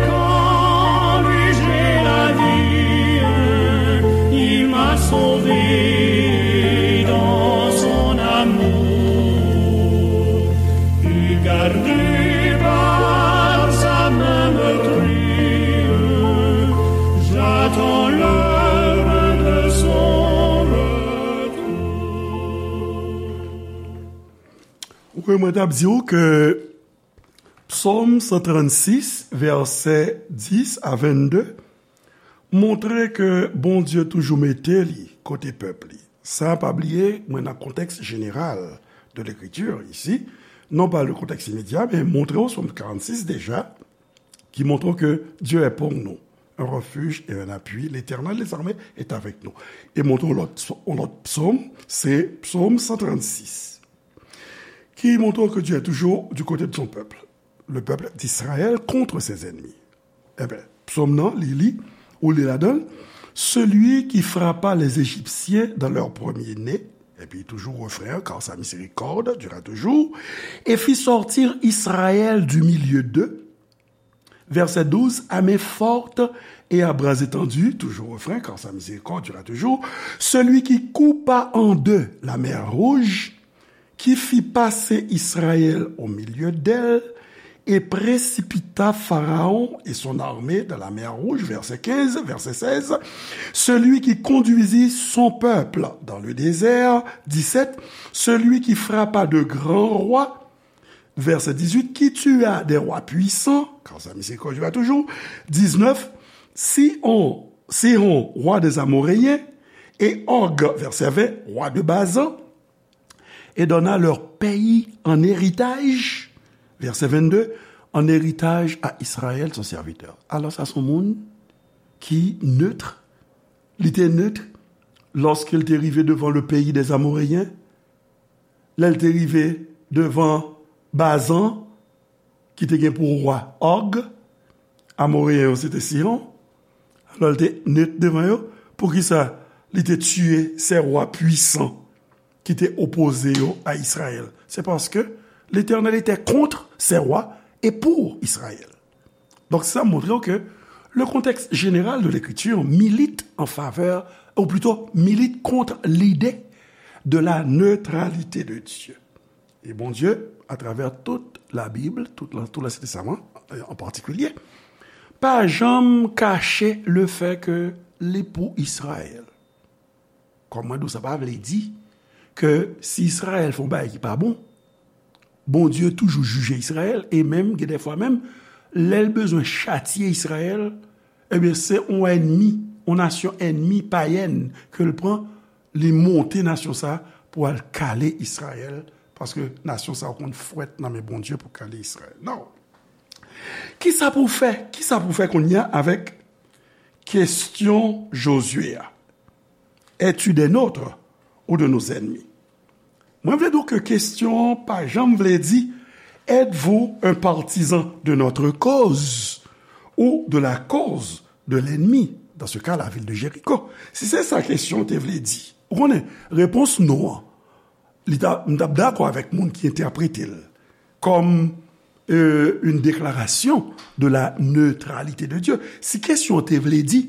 Quand lui j'ai la vie, il m'a sauvé dans son amour. Et gardé par sa main meurtrie, j'attends l'heure de son retour. Wi, mwen t ap di w ke Psaume cent trente-six, vèsè dix à vingt-deux, montre ke Bondye toujou mete li kote pèp li. Sa, pa bliye, mwen nan kontèks jeneral de lekriti isi, non pa le kontèks imedya, men montre w Psaume quarante-six deja, ki montre ke Dieu est pour nous un refuge et un appui, l'Éternel des armées est avec nous. E montre w lòt, yon lòt psaume, se Psaume cent trente-six, ki montre ke Dieu est toujours du côté de son peuple, le peuple d'Israël contre ses ennemis. Ebyen, psaume nan, li, li, ou li ladan, celui qui frappa les Égyptiens dans leur premier-né, epi toujou refren an, car sa miséricorde dura toujours, et fit sortir Israël du milieu d'eux, verset douze, à main forte et à bras étendus, toujours refren, car sa miséricorde dura toujours, celui qui coupa en deux la mer Rouge, qui fit passer Israël au milieu d'elle, et précipita Pharaon et son armée dans la mer Rouge, verset quinze, verset seize, celui qui conduisit son peuple dans le désert, dix-sept, celui qui frappa de grands rois, verset dix-huit, qui tua des rois puissants, car sa miséricorde dura toujours, dix-neuf, Sihon, Sihon, roi des Amoréens, et Og, verset vingt, roi de Bazan, et donna leur pays en héritage, verset vingt-deux, en héritage à Israël, son serviteur. Alò, sa se yon moun ki neutre, li te neutre lorsqu'il te rivé devant le pays des Amoréens, lè l te rive devan Bazan, ki te gen pou wa Og, Amoreyen yo se te Sihon, alò l te net devan yo. Poukisa li te tiye sè wa pwisan ki te opoze yo a Izrayèl? Se paske Letènèl etè kont sè wa e pou Izrayèl. Donk, sa montre w ke le contexte général de l'écriture milite en faveur, ou plutôt milite contre l'idée de la neutralité de Dieu. E Bondye, atravè tout Labib, tout la, tout Lansyen Testaman, an patikilye, pa janm kache lefè ke li pou Izrayèl. Kòm mwen di w, sa pa vle di ke si Izrayèl fè yon bagay ki pa bon, Bondye toujou jije Izrayèl, e menm, gen dèfwa menm, lè l bezwen chatye Izrayèl, ebyen, se yon ènmi, yon nasyon ènmi payèn ke l pran, li monte nasyon sa a pou al kale Izrayèl, paske nasyon sa a konn fwèt nan men Bondye pou kale Izrayèl. Non. Kisa pou w fè? Kisa pou w fè kounye a avèk kesyon Jozye a? Es-tu des nôtres ou de nos ennemis? Mwen vle di w ke kesyon an pa janm vle di, êtes-vous un partisan de notre cause ou de la cause de l'ennemi, dans ce cas, la ville de Jéricho? Si se sa kesyon an te vle di, ou konnen, repons non an, li ta, m t ap dakò avèk moun ki entèprete l kòm, euh, une déclaration de la neutralité de Dieu. Si kesyon an te vle di,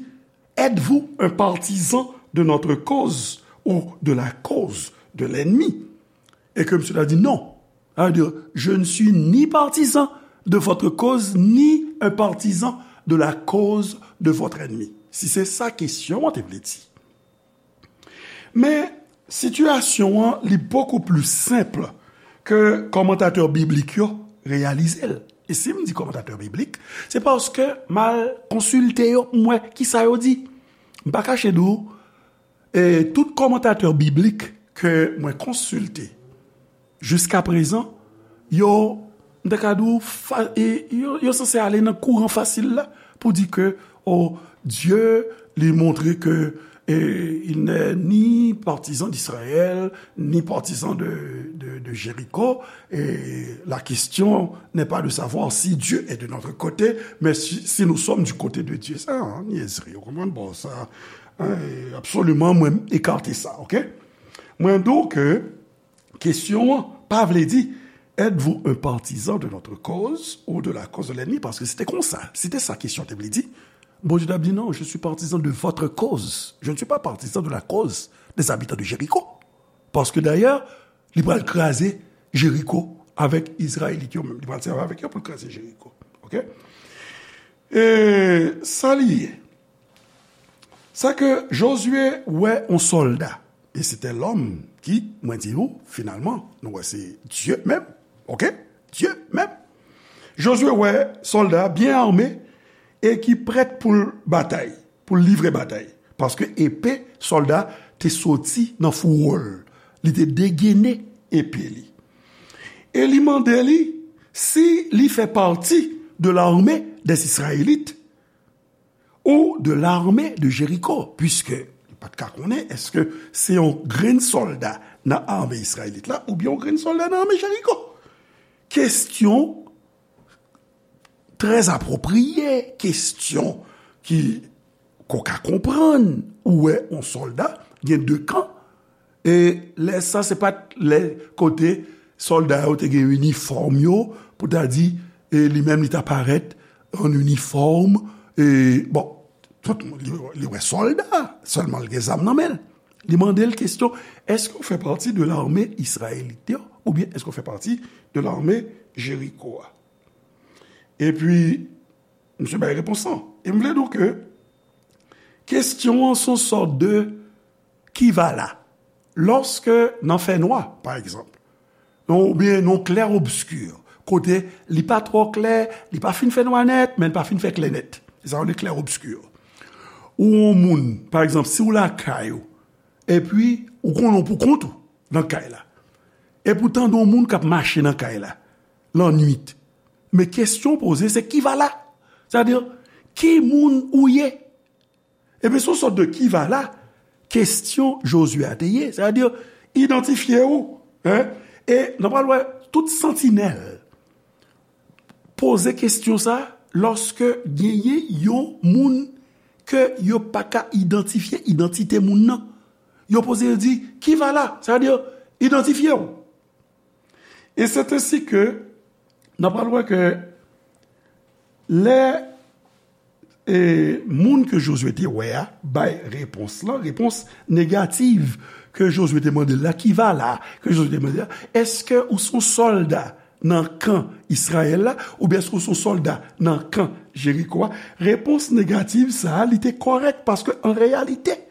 êtes-vous un partisan de notre cause ou de la cause de l'ennemi? E ke misye ta di non. Sa vle di, je ne suis ni partisan de votre cause, ni un partisan de la cause de votre ennemi. Si se sa kesyon an te vle di. Men, sitiyasyon an, li bokou pli senp ke kòmantatè biblik yo reyalize l. E si m di kòmantatè biblik, se paske m al konsilte yo, m wè kisa yo di. M pa kache di w, e tout kòmantatè biblik ke mwen konsilte jiskaprezan, yo, m ta ka di w, fa-, e, yo, yo sanse ale nan kouran fasil la pou di ke, o, Dye, li montre ke, e, il n'est ni partisan d'Israël, ni partisan de, de, de Jéricho, et la question n'est pas de savoir si Dieu est de notre côté, mais si, si nous sommes du côté de Dieu. Sa, an, nyèzri, ou konprann? Bon, sa, an, e, absoliman, mwen ekate sa, oke? Mwen di w ke kesyon an pa vle di, Êtes-vous un partisan de notre cause ou de la cause de l'ennemi? Paske se te konsa, se te sa kesyon te vle di. Bondye t ap di, non, je suis partisan de votre cause. Je ne suis pas partisan de la cause des habitants de Jéricho. Paske dayè, li pral kraze Jeriko avèk Izrayelit yo menm. Li pral sèvi avèk yo pou l kraze Jeriko. Oke? E sa li ye. Sa ke Jozye wè yon sòlda. E se te lòm ki, mwen di nou, finalman, nou wè se Dye menm. Oke? Dye menm. Jozye wè sòlda byen ame e ki prèt pou l batay, pou l livre batay. Paske epe sòlda te soti nan fouwo l. Li te degene epe li. E li mande li si li fè pati de l'armée des Israélites ou de l'armée de Jéricho, puiske li pa t ka konnen èske se yon grenn sòlda nan ame Izrayelit la oubyen yon grenn sòlda nan ame Jeriko. Kesyon trè apwopriye, kesyon ki, ke w ka konprann, ou wè yon sòlda, gen de kan, e lè sa se pa t lè kote sòlda yo te gen inifòm yo, pou ta di, e li menm li ta parèt an inifòm, e bon, tout moun, li, li wè sòlda, sèlman l gen zam nan men l. Li mande l kesyon, èske w fè pati de lame izrayelit yo, oubyen èske w fè pati de lame Jeriko a? Epi, misye bay repons lan. E m vle di w ke kesyon an se yon sòt de ki va la. Lòske nan fènwa, pa egzanp, non, oubyen nan klè obski, kote li pa twò klè, li pa fin fènwa nèt, men li pa fin fè klè nèt. Se sa yo rele klè obski. Ou yon moun, pa egzanp, si w lakay ou, epi ou konnen w pou kont ou nan kay la. Epi w tande yon moun k ap mache nan kay la, lannwit. Men kesyon w poze, se ki va la? Sètadi, ki moun ou ye? Ebyen, se yon sòt de ki va la, kesyon Jozye a te ye. Sètadi, idantifye w, en? E n ap pral wè tout santinèl poze kesyon sa lòske genyen yon moun ke yo pa ka idantifye idantite moun nan. Yo poze yo di, ki va la? Sètadi, idantifye w. E se te si ke n ap pral wè ke lè e moun ke Jozye te wè a bay repons lan, repons negatif ke Jozye te mande l la, ki va la, ke Jozye te mande la, èske ou se yon sòlda nan kan Izrayèl la, oubyen èske ou se yon sòlda nan kan Jeriko a? Repons negatif sa a, li te kòrèk, paske an reyalite,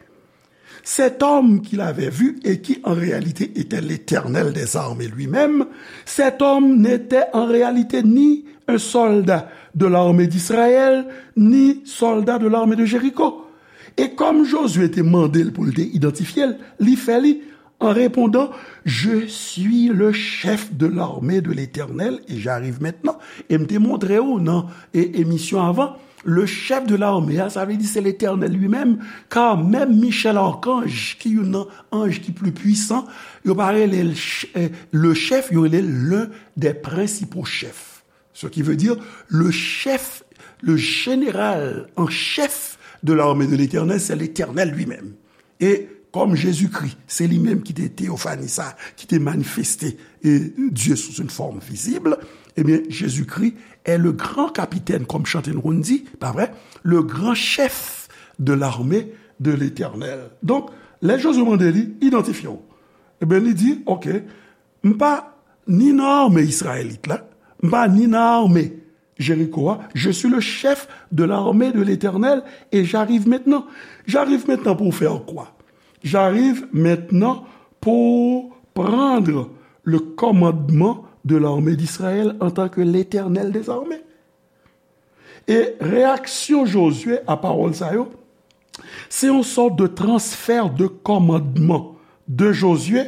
cet homme qu'il avait vu et qui en réalité était l'Éternel des armées lui-même, cet homme n'était en réalité ni un soldat de l'armée d'Israël, ni soldat de l'armée de Jéricho. E kòm Jozye te mande l pou l te idantifye l, li fè li, en répondant, je suis le chef de l'armée de l'Éternel et j'arrive maintenant. E m te montre w nan e, emisyon avan, le chef de l'armée a, sa vle di se Letènèl li menm, kar menm Michel Archange, ki youn nan anj ki pli pwisan, yo pa rele l ch-, eh, le chef, yo rele l l'un des principaux chefs. Ce qui veut dire le chef, le général en chef de l'armée de l'Éternel, c'est l'Éternel lui-même. E kòm Jezikri, se li menm ki te teyofani sa, ki te manifeste e Dye sou yon fòm vizib, ebyen, Jezikri est le grand capitaine, kòm chante nou konn di, pa vre? Le grand chef de l'armée de l'Éternel. Donk, lè Jozye mande li, idantifye w. Ebyen, li di, oke, m pa ni nan ame Izrayelit la, m pa ni nan ame Jéricho a, je suis le chef de l'armée de l'Éternel et j'arrive maintenant. J'arrive maintenant pour faire quoi? J'arrive maintenant pour prendre le commandement de l'armée d'Israël en tant que l'Éternel des armées. E reyaksyon Jozye a pawòl sa yo, se yon sòt de transfè de kòmandman de Jozye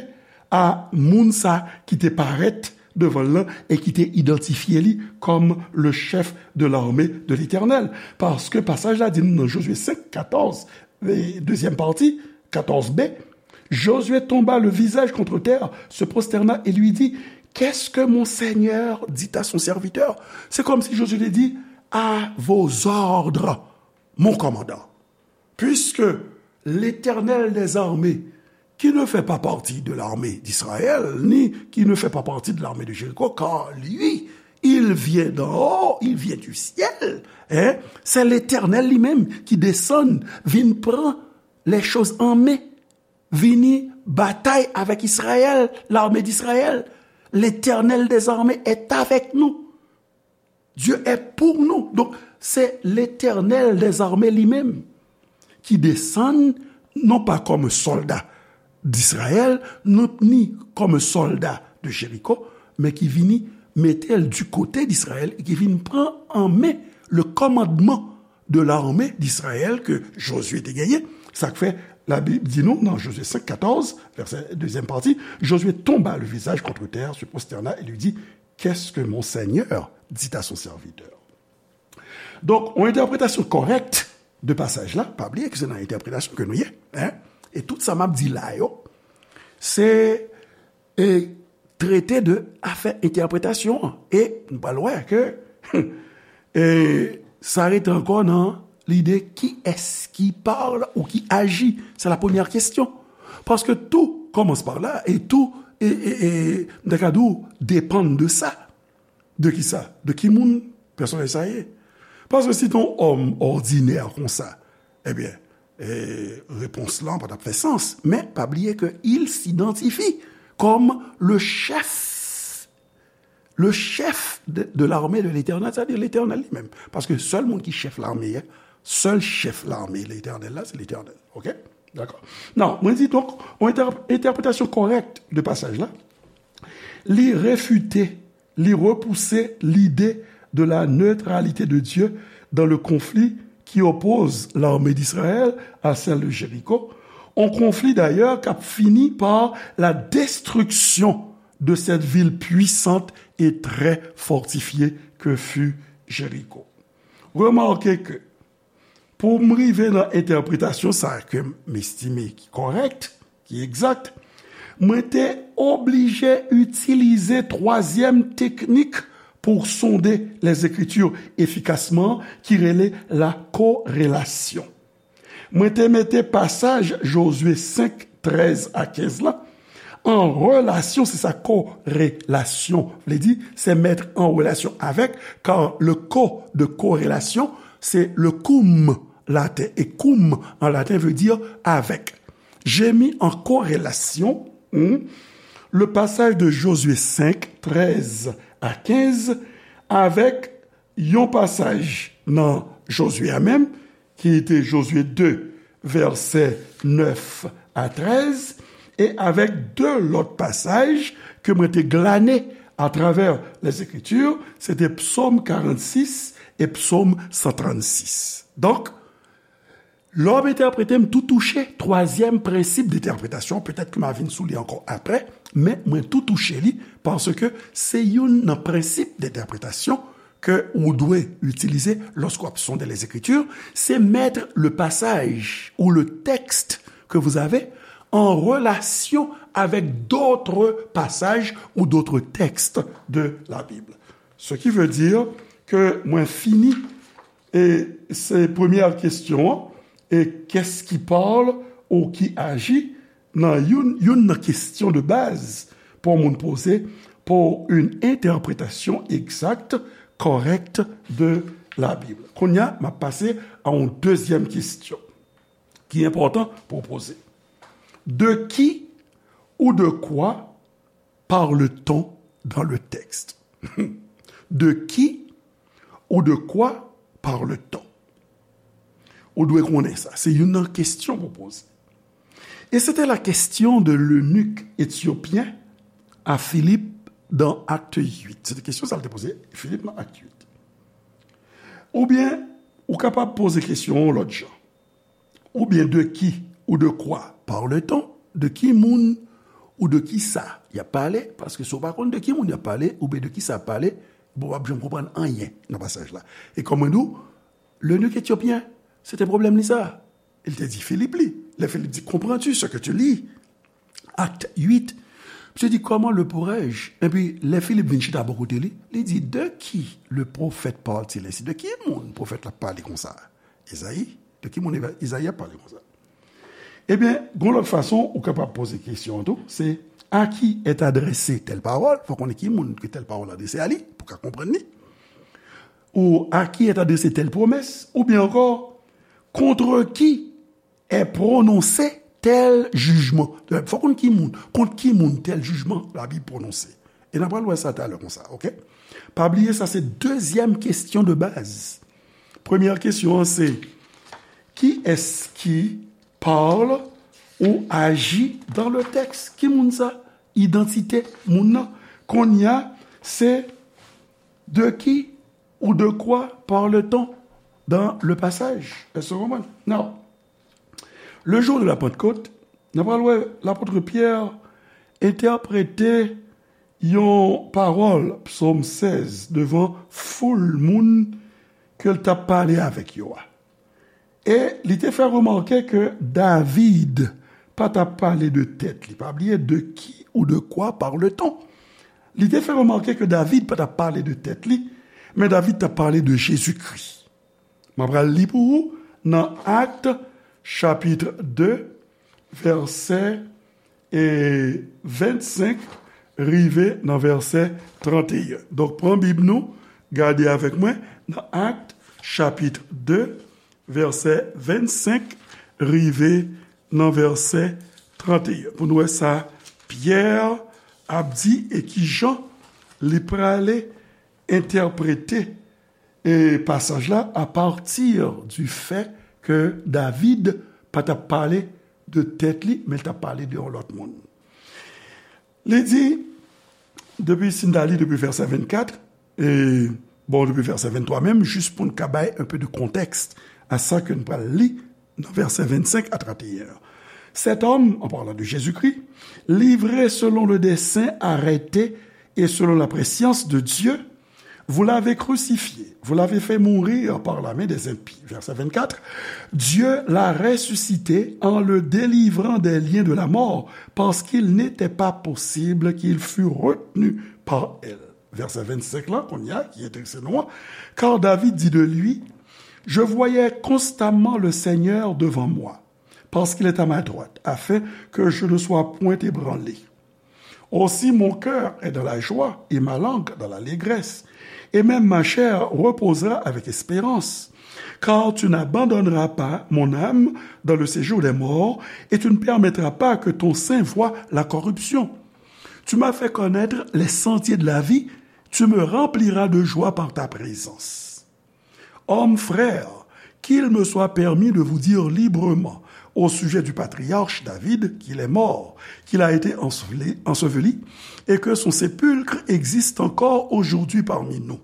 a moun sa ki te parèt devan l lan e ki te idantifye li kòm le chef de l'armée de l'Éternel. Paske pasaj la di nou nan Jozye senk, katòz, e dezyèm pati, katòz b, Josué tomba le visage contre terre, se prosterna et lui dit, qu'est-ce que mon Seigneur dit à son serviteur? Se kòmsi Jozye te di, à vos ordres, mon commandant. Puisque l'Éternel des armées qui ne fait pas partie de l'armée d'Israël, ni qui ne fait pas partie de l'armée de Jéricho, car lui, il vient d'en haut, il vient du ciel. Hein? C'est l'Éternel lui-même qui descend, vin pran les choses en main, vini batay avec Israël, l'armée d'Israël. L'Éternel des armées est avec nous. Dieu est pour nous. Donc, c'est l'Éternel des armées lui-même qui descend, non pas comme un soldat d'Israël, non, ni comme un soldat de Jéricho, men ki vini mete l du côté d'Israël e ki vin pran an men le commandement de l'armée d'Israël ke Josué te genyen. Sa k fè Labib di nou nan Josué cinq quatorze, vèsè dezyèm pati, Josué tomba le visage contre terre, se prosterna et lui dit, qu'est-ce que mon Seigneur dit à son serviteur? Donk, yon entèpretasyon kòrèk de pasaj la, pa bliye ke se nan entèpretasyon ke nou ye, hein? E tout sa m ap di la yo, se e, trete de afè entèpretasyon an. E nou pral wè ke e, sa rete ankò nan lide kiyès ki parle ou ki agit. C'est la première question. Parce que tout commence par là et tout, e, e, e, m ta ka di w, dépend de sa. De ki sa? De ki moun pèsonaj sa ye? Paske si te yon òm òdinè konsa, ebyen, e, repons lan pa t ap fè sans. Men pa bliye ke il s'identifie comme le chef, le chef de, de l'armée de l'Éternel, c'est-à-dire l'Éternel li menm. Paske sèl moun ki chèf lame a, sèl chèf lame Letènèl la, se Letènèl. Oke? Dakò. Non, mwen di donk, yon entè-, entèpretasyon kòrèk de pasaj la, li refite, li repouse lide de la neutralité de Dieu dans le conflit qui oppose l'armée d'Israël à celle de Jéricho, un conflit d'ailleurs qui a fini par la destruction de cette ville puissante et très fortifiée que fut Jéricho. Remake ke pou m rive nan entèpretasyon sa ke m estime ki kòrèk, ki egzak, mwen te oblije itilize twazyèm teknik pou sonde Lèzekritir efikasman, ki rele la korelasyon. Mwen te mete pasaj Jozye senk, trèz a kenz la an relasyon, se sa korelasyon vle di, se mèt an relasyon avèk, kar le ko de korelasyon, se le koum laten, e koum an laten vle di avèk. J'ai mis en corrélation, hmm, le passage de Josué cinq, treize à quinze avèk yon pasaj nan Jozye a menm, ki te Jozye de, vèsè nèf a trèz, e avèk de lòt pasaj ke mwen te glane atravè Lèzekritir, se te Psòm karannsis e Psòm san trannsis. Donk, lè w ap entèprete, m tou touche twazyèm prensip de entèpretasyon, petèt ke m a vin sou li ankò aprè, men mwen tou touche li, paske se youn nan prensip de entèpretasyon ke ou dwe itilize lòske w ap sonde Lèzekritir, se mettre le passage ou le texte que vous avez en relation avec d'autres passages ou d'autres textes de la Bible. Ce qui veut dire que mwen fini, e se premyè kesyon an, e qu'est-ce qui parle ou qui agit, nan youn, youn nan kesyon de baz pou yon moun poze pour une interprétation exacte, correcte de la Bible. Kounye a, m ap pase a yon dezyèm kesyon ki enpòtan pou w poze. De qui ou de quoi parle-t-on dans le texte? De qui ou de quoi parle-t-on? Ou dwe konnen sa. Se youn nan kesyon pou poze. Et c'était la question de l'eunuque éthiopien à Philippe dans Acte huit. Se te kesyon sa l te poze Filip nan Akt uit. Oubyen, ou kapab poze kesyon an yon lòt jan. Oubyen de qui ou de quoi parle-t-on? De ki moun ou de ki sa y ap pale? Paske si w pa konn de ki moun y ap pale, oubyen de ki sa y ap pale, bon, w p ap janm konprann anyen nan pasaj la. E kòm mwen di w, l'eunuque éthiopien, se te pwoblèm li sa. Il te di Filip li. Lè Filip di, comprends-tu ce que tu lis? Acte huit. Misye di, comment le pourrais-je? Epi, lè Filip vin chita bò kote li, li di, de qui le prophète parle-t-il ainsi? De ki moun pwofèt la pale konsa? Ezayi. De ki moun Eva-, Ezayi ap pale konsa? Ebyen, gon lòt fason ou kapab poze kesyon an tou, se: à qui est adressée telle parole? Fò konnen ki moun ke tèl pawòl adrese a li, pou ka konprann li. Ou: à qui est adressée telle promesse? Oubyen ankò: contre qui est prononcé tel jugement? Fò konn ki moun, kont ki moun tèl jijman Labib pwononse. E n ap pral wè sa talè konsa, oke? Pa bliye, sa se dezyèm kesyon de baz. Premyè kesyon an se: qui est-ce qui parle ou agit dans le texte? Ki moun sa? Idantite moun nan. Kounye a, se: de qui ou de quoi parle-t-on dans le passage? Èske w konprann? Now, le jour de la Pentecôte, n ap pral wè lapot Pyè entèprete yon pawòl, Psòm sèz, devan foul moun ke l t ap pale avèk yo a. E li te fè remake ke David pa t ap pale de tèt li. Pa bliye, de qui ou de quoi parle-t-on? Li te fè remake ke David pa t ap pale de tèt li, men David t ap pale de Jezikri. M ap pral li pou ou nan Akt, chapit de, vèsè e vennsenk rive nan vèsè tranteyen. Donk, pran Bib nou, gade avèk mwen nan Akt, chapit de, vèsè vennsenk rive nan vèsè tranteyen. Pou nou wè sa Pyè ap di e kijan li prale entèprete e pasaj la apati di fè ke David pa t ap pale de tèt li, men l t ap pale de yon lòt moun. Li di, depi, si n ta li depi vèsè vennkat, e, bon, depi vèsè venntwa menm, jis pou n ka bay un peu de contexte à sa ke n pral li nan vèsè vennsenk a tranteyen an. Cet homme, en parlant de Jésus-Christ, livré selon le dessein arrêté et selon la prescience de Dieu, vous l'avez crucifié, vous l'avez fait mourir par la main des impies. Verset vingt-quatre, Dieu l'a ressuscité en le délivrant des liens de la mort, parce qu'il n'était pas possible qu'il fût retenu par elle. Verset vingt-cinq là, kounye a, ki enterese nou an, car David dit de lui, je voyais constamment le Seigneur devant moi, parce qu'il est à ma droite, afin que je ne sois point ébranlé. Aussi mon cœur est dans la joie et ma langue dans l'allégresse, et même ma chair reposera avec espérance. Car tu n'abandonneras pas mon âme dans le séjour des morts, et tu ne permettras pas que ton saint voie la corruption. Tu m'as fait connaître les sentiers de la vie, tu me rempliras de joie par ta présence. Hommes, frères, qu'il me soit permis de vous dire librement au sujet du patriarche David, qu'il est mort, qu'il a été enseveli, enseveli, et que son sépulcre existe encore aujourd'hui parmi nous.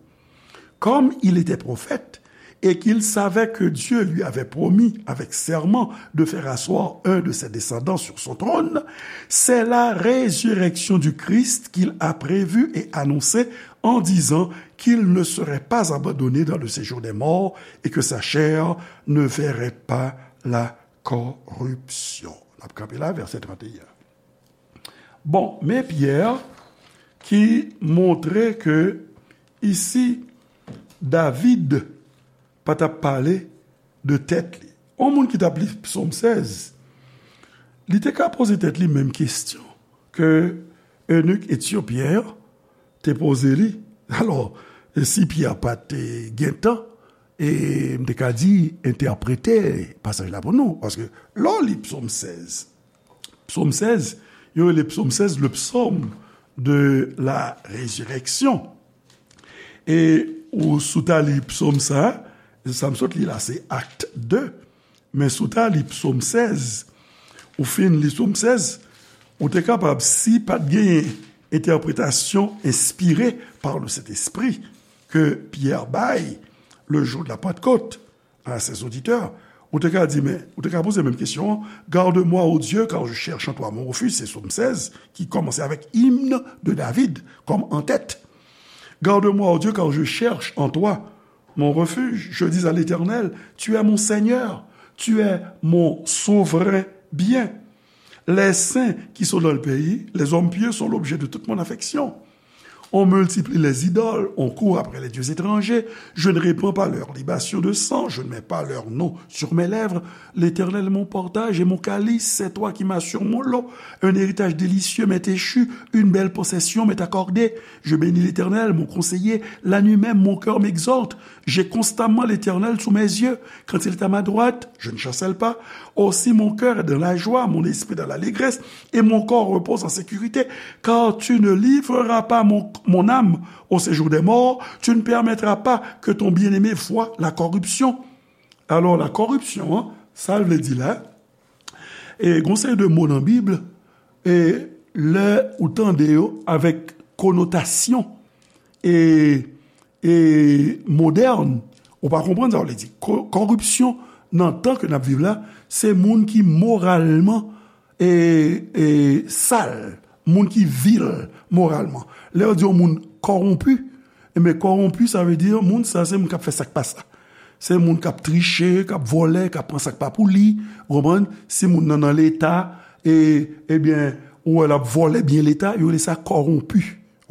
Comme il était prophète, et qu'il savait que Dieu lui avait promis avec serment de faire asseoir un de ses descendants sur son trône, c'est la résurrection du Christ qu'il a prévue et annoncée en disant qu'il ne serait pas abandonné dans le séjour des morts et que sa chair ne verrait pas la corruption. N ap kanpe la, vèsè tranteyen. Bon, men Pyè ki montre ke isi David pa t ap pale de tèt li. Yon moun ki t ap li Psòm sèz, li te ka poze tèt li menm kesyon ke enik etyopyen an te poze li. Alò, si Pyè pa te gen tan, e m te ka di, entèprete pasaj la pou nou. Paske lè w li Psòm sèz, Psòm sèz, yo rele Psòm sèz le psaume de la résurrection. E ou sou ta li psòm sa, sa m sot li la, se Akt de. Men sou ta li psòm sèz, ou fin li psòm sèz, ou te kapab, si pa t genyen entèpretasyon enspire par le Saint-Esprit ke Pyè bay le jour de la Pentecôte à ses auditeurs, ou te ka di, men, ou te ka poze menm kesyon an, Garde-moi, ô Dieu, car je cherche en toi mon refuge, se psaume seize, ki kòmanse avèk hymne de David, kòm antèt. Garde-moi, ô Dieu, car je cherche en toi mon refuge. Je dis à l'Éternel, tu es mon Seigneur, tu es mon souverain bien. Les saints qui sont dans le pays, les hommes pieux sont l'objet de toute mon affection. On multiplie les idoles, on court après les dieux étrangers. Je ne répands pas leurs libations de sang, je ne mets pas leur nom sur mes lèvres. L'Éternel est mon partage et mon calice, c'est toi qui m'assures mon lot. Un héritage délicieux m'est échu, une belle possession m'est accordée. Je bénis l'Éternel, mon conseiller. La nuit même, mon cœur m'exalte. J'ai constamment l'Éternel sous mes yeux. Quand il est à ma droite, je ne chancelle pas. Aussi mon cœur est dans la joie, mon esprit dans l'allégresse, et mon corps repose en sécurité, car tu ne livreras pas mon, mon âme au séjour des morts, tu ne permettras pas que ton bien-aimé voie la corruption. Alò, la corruption, hein, sa l vle di la, e gon seri de mo nan Bib, e lè ou tande yo avèk konotasyon e, e modèn, ou pa konprann sa w vle di. Ko-, kòripsyon nan tan ke n ap viv la, se moun ki moralman e, e sal, moun ki vil moralman. Lè yo di yon moun kòwonpi, enben, kòwonpi, sa vle di moun sa, se moun k ap fè sa k pa sa. Se moun k ap triche, k ap vòlè, k ap pran sa k pa pou li, ou konprann? Si moun nan nan Leta, e, ebyen, ou wè l ap vòlè byen Leta, yo rele sa kòwonpi.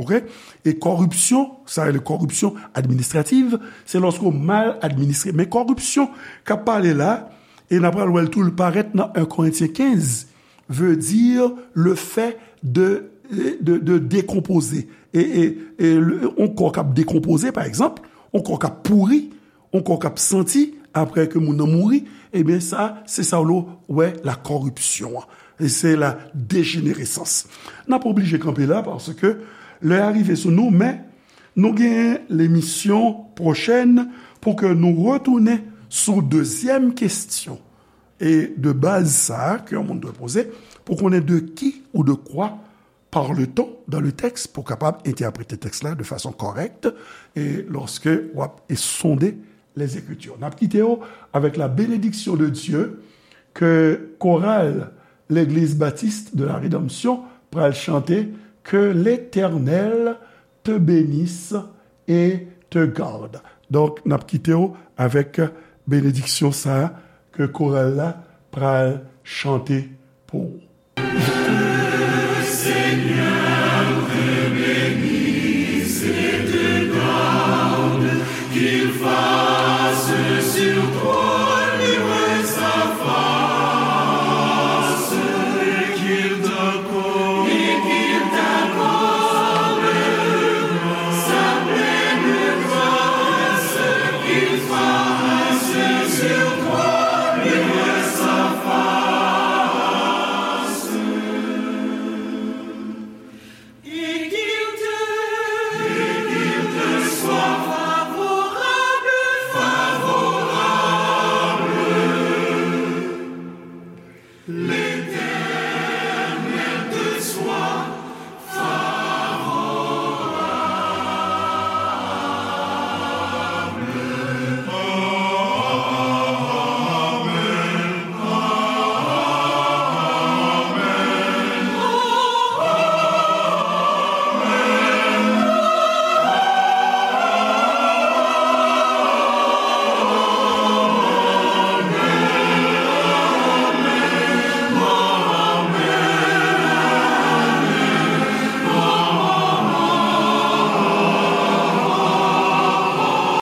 Oke? E kòripsyon, sa rele kòripsyon administrativ, se lòske w mal administre. Men kòripsyon k ap pale la, e n ap pral wè l tou, l parèt nan en Korentyen kenz, veut dire le fait de, de, de décomposer. E, e, e le, yon kò k ap dekonpoze, pa egzanp, yon kò k ap pouri, yon kò k ap santi, apre ke moun nan mouri, ebyen sa, se sa w wè la corruption an. E se la dégénérescence. N ap oblije kanpe la, paske lè a rive sou nou, men nou gen lemisyon pwochèn pou ke nou retounen sou dezyèm kesyon e de baz sa a ke yon moun dwe poze pou konnen de qui ou de quoi parle-t-on dans le texte pou kapab entèprete tèks la de fason kòrèk e lòske w ap e sonde les Écritures. N ap kite w avèk la bénédiction de Dieu ke koral Legliz Batis de la Redanmsyon pral chante, Que l'Éternel te bénisse et te garde. Donk, n ap kite w avèk benediksyon sa a ke koral la pral chante pou ou.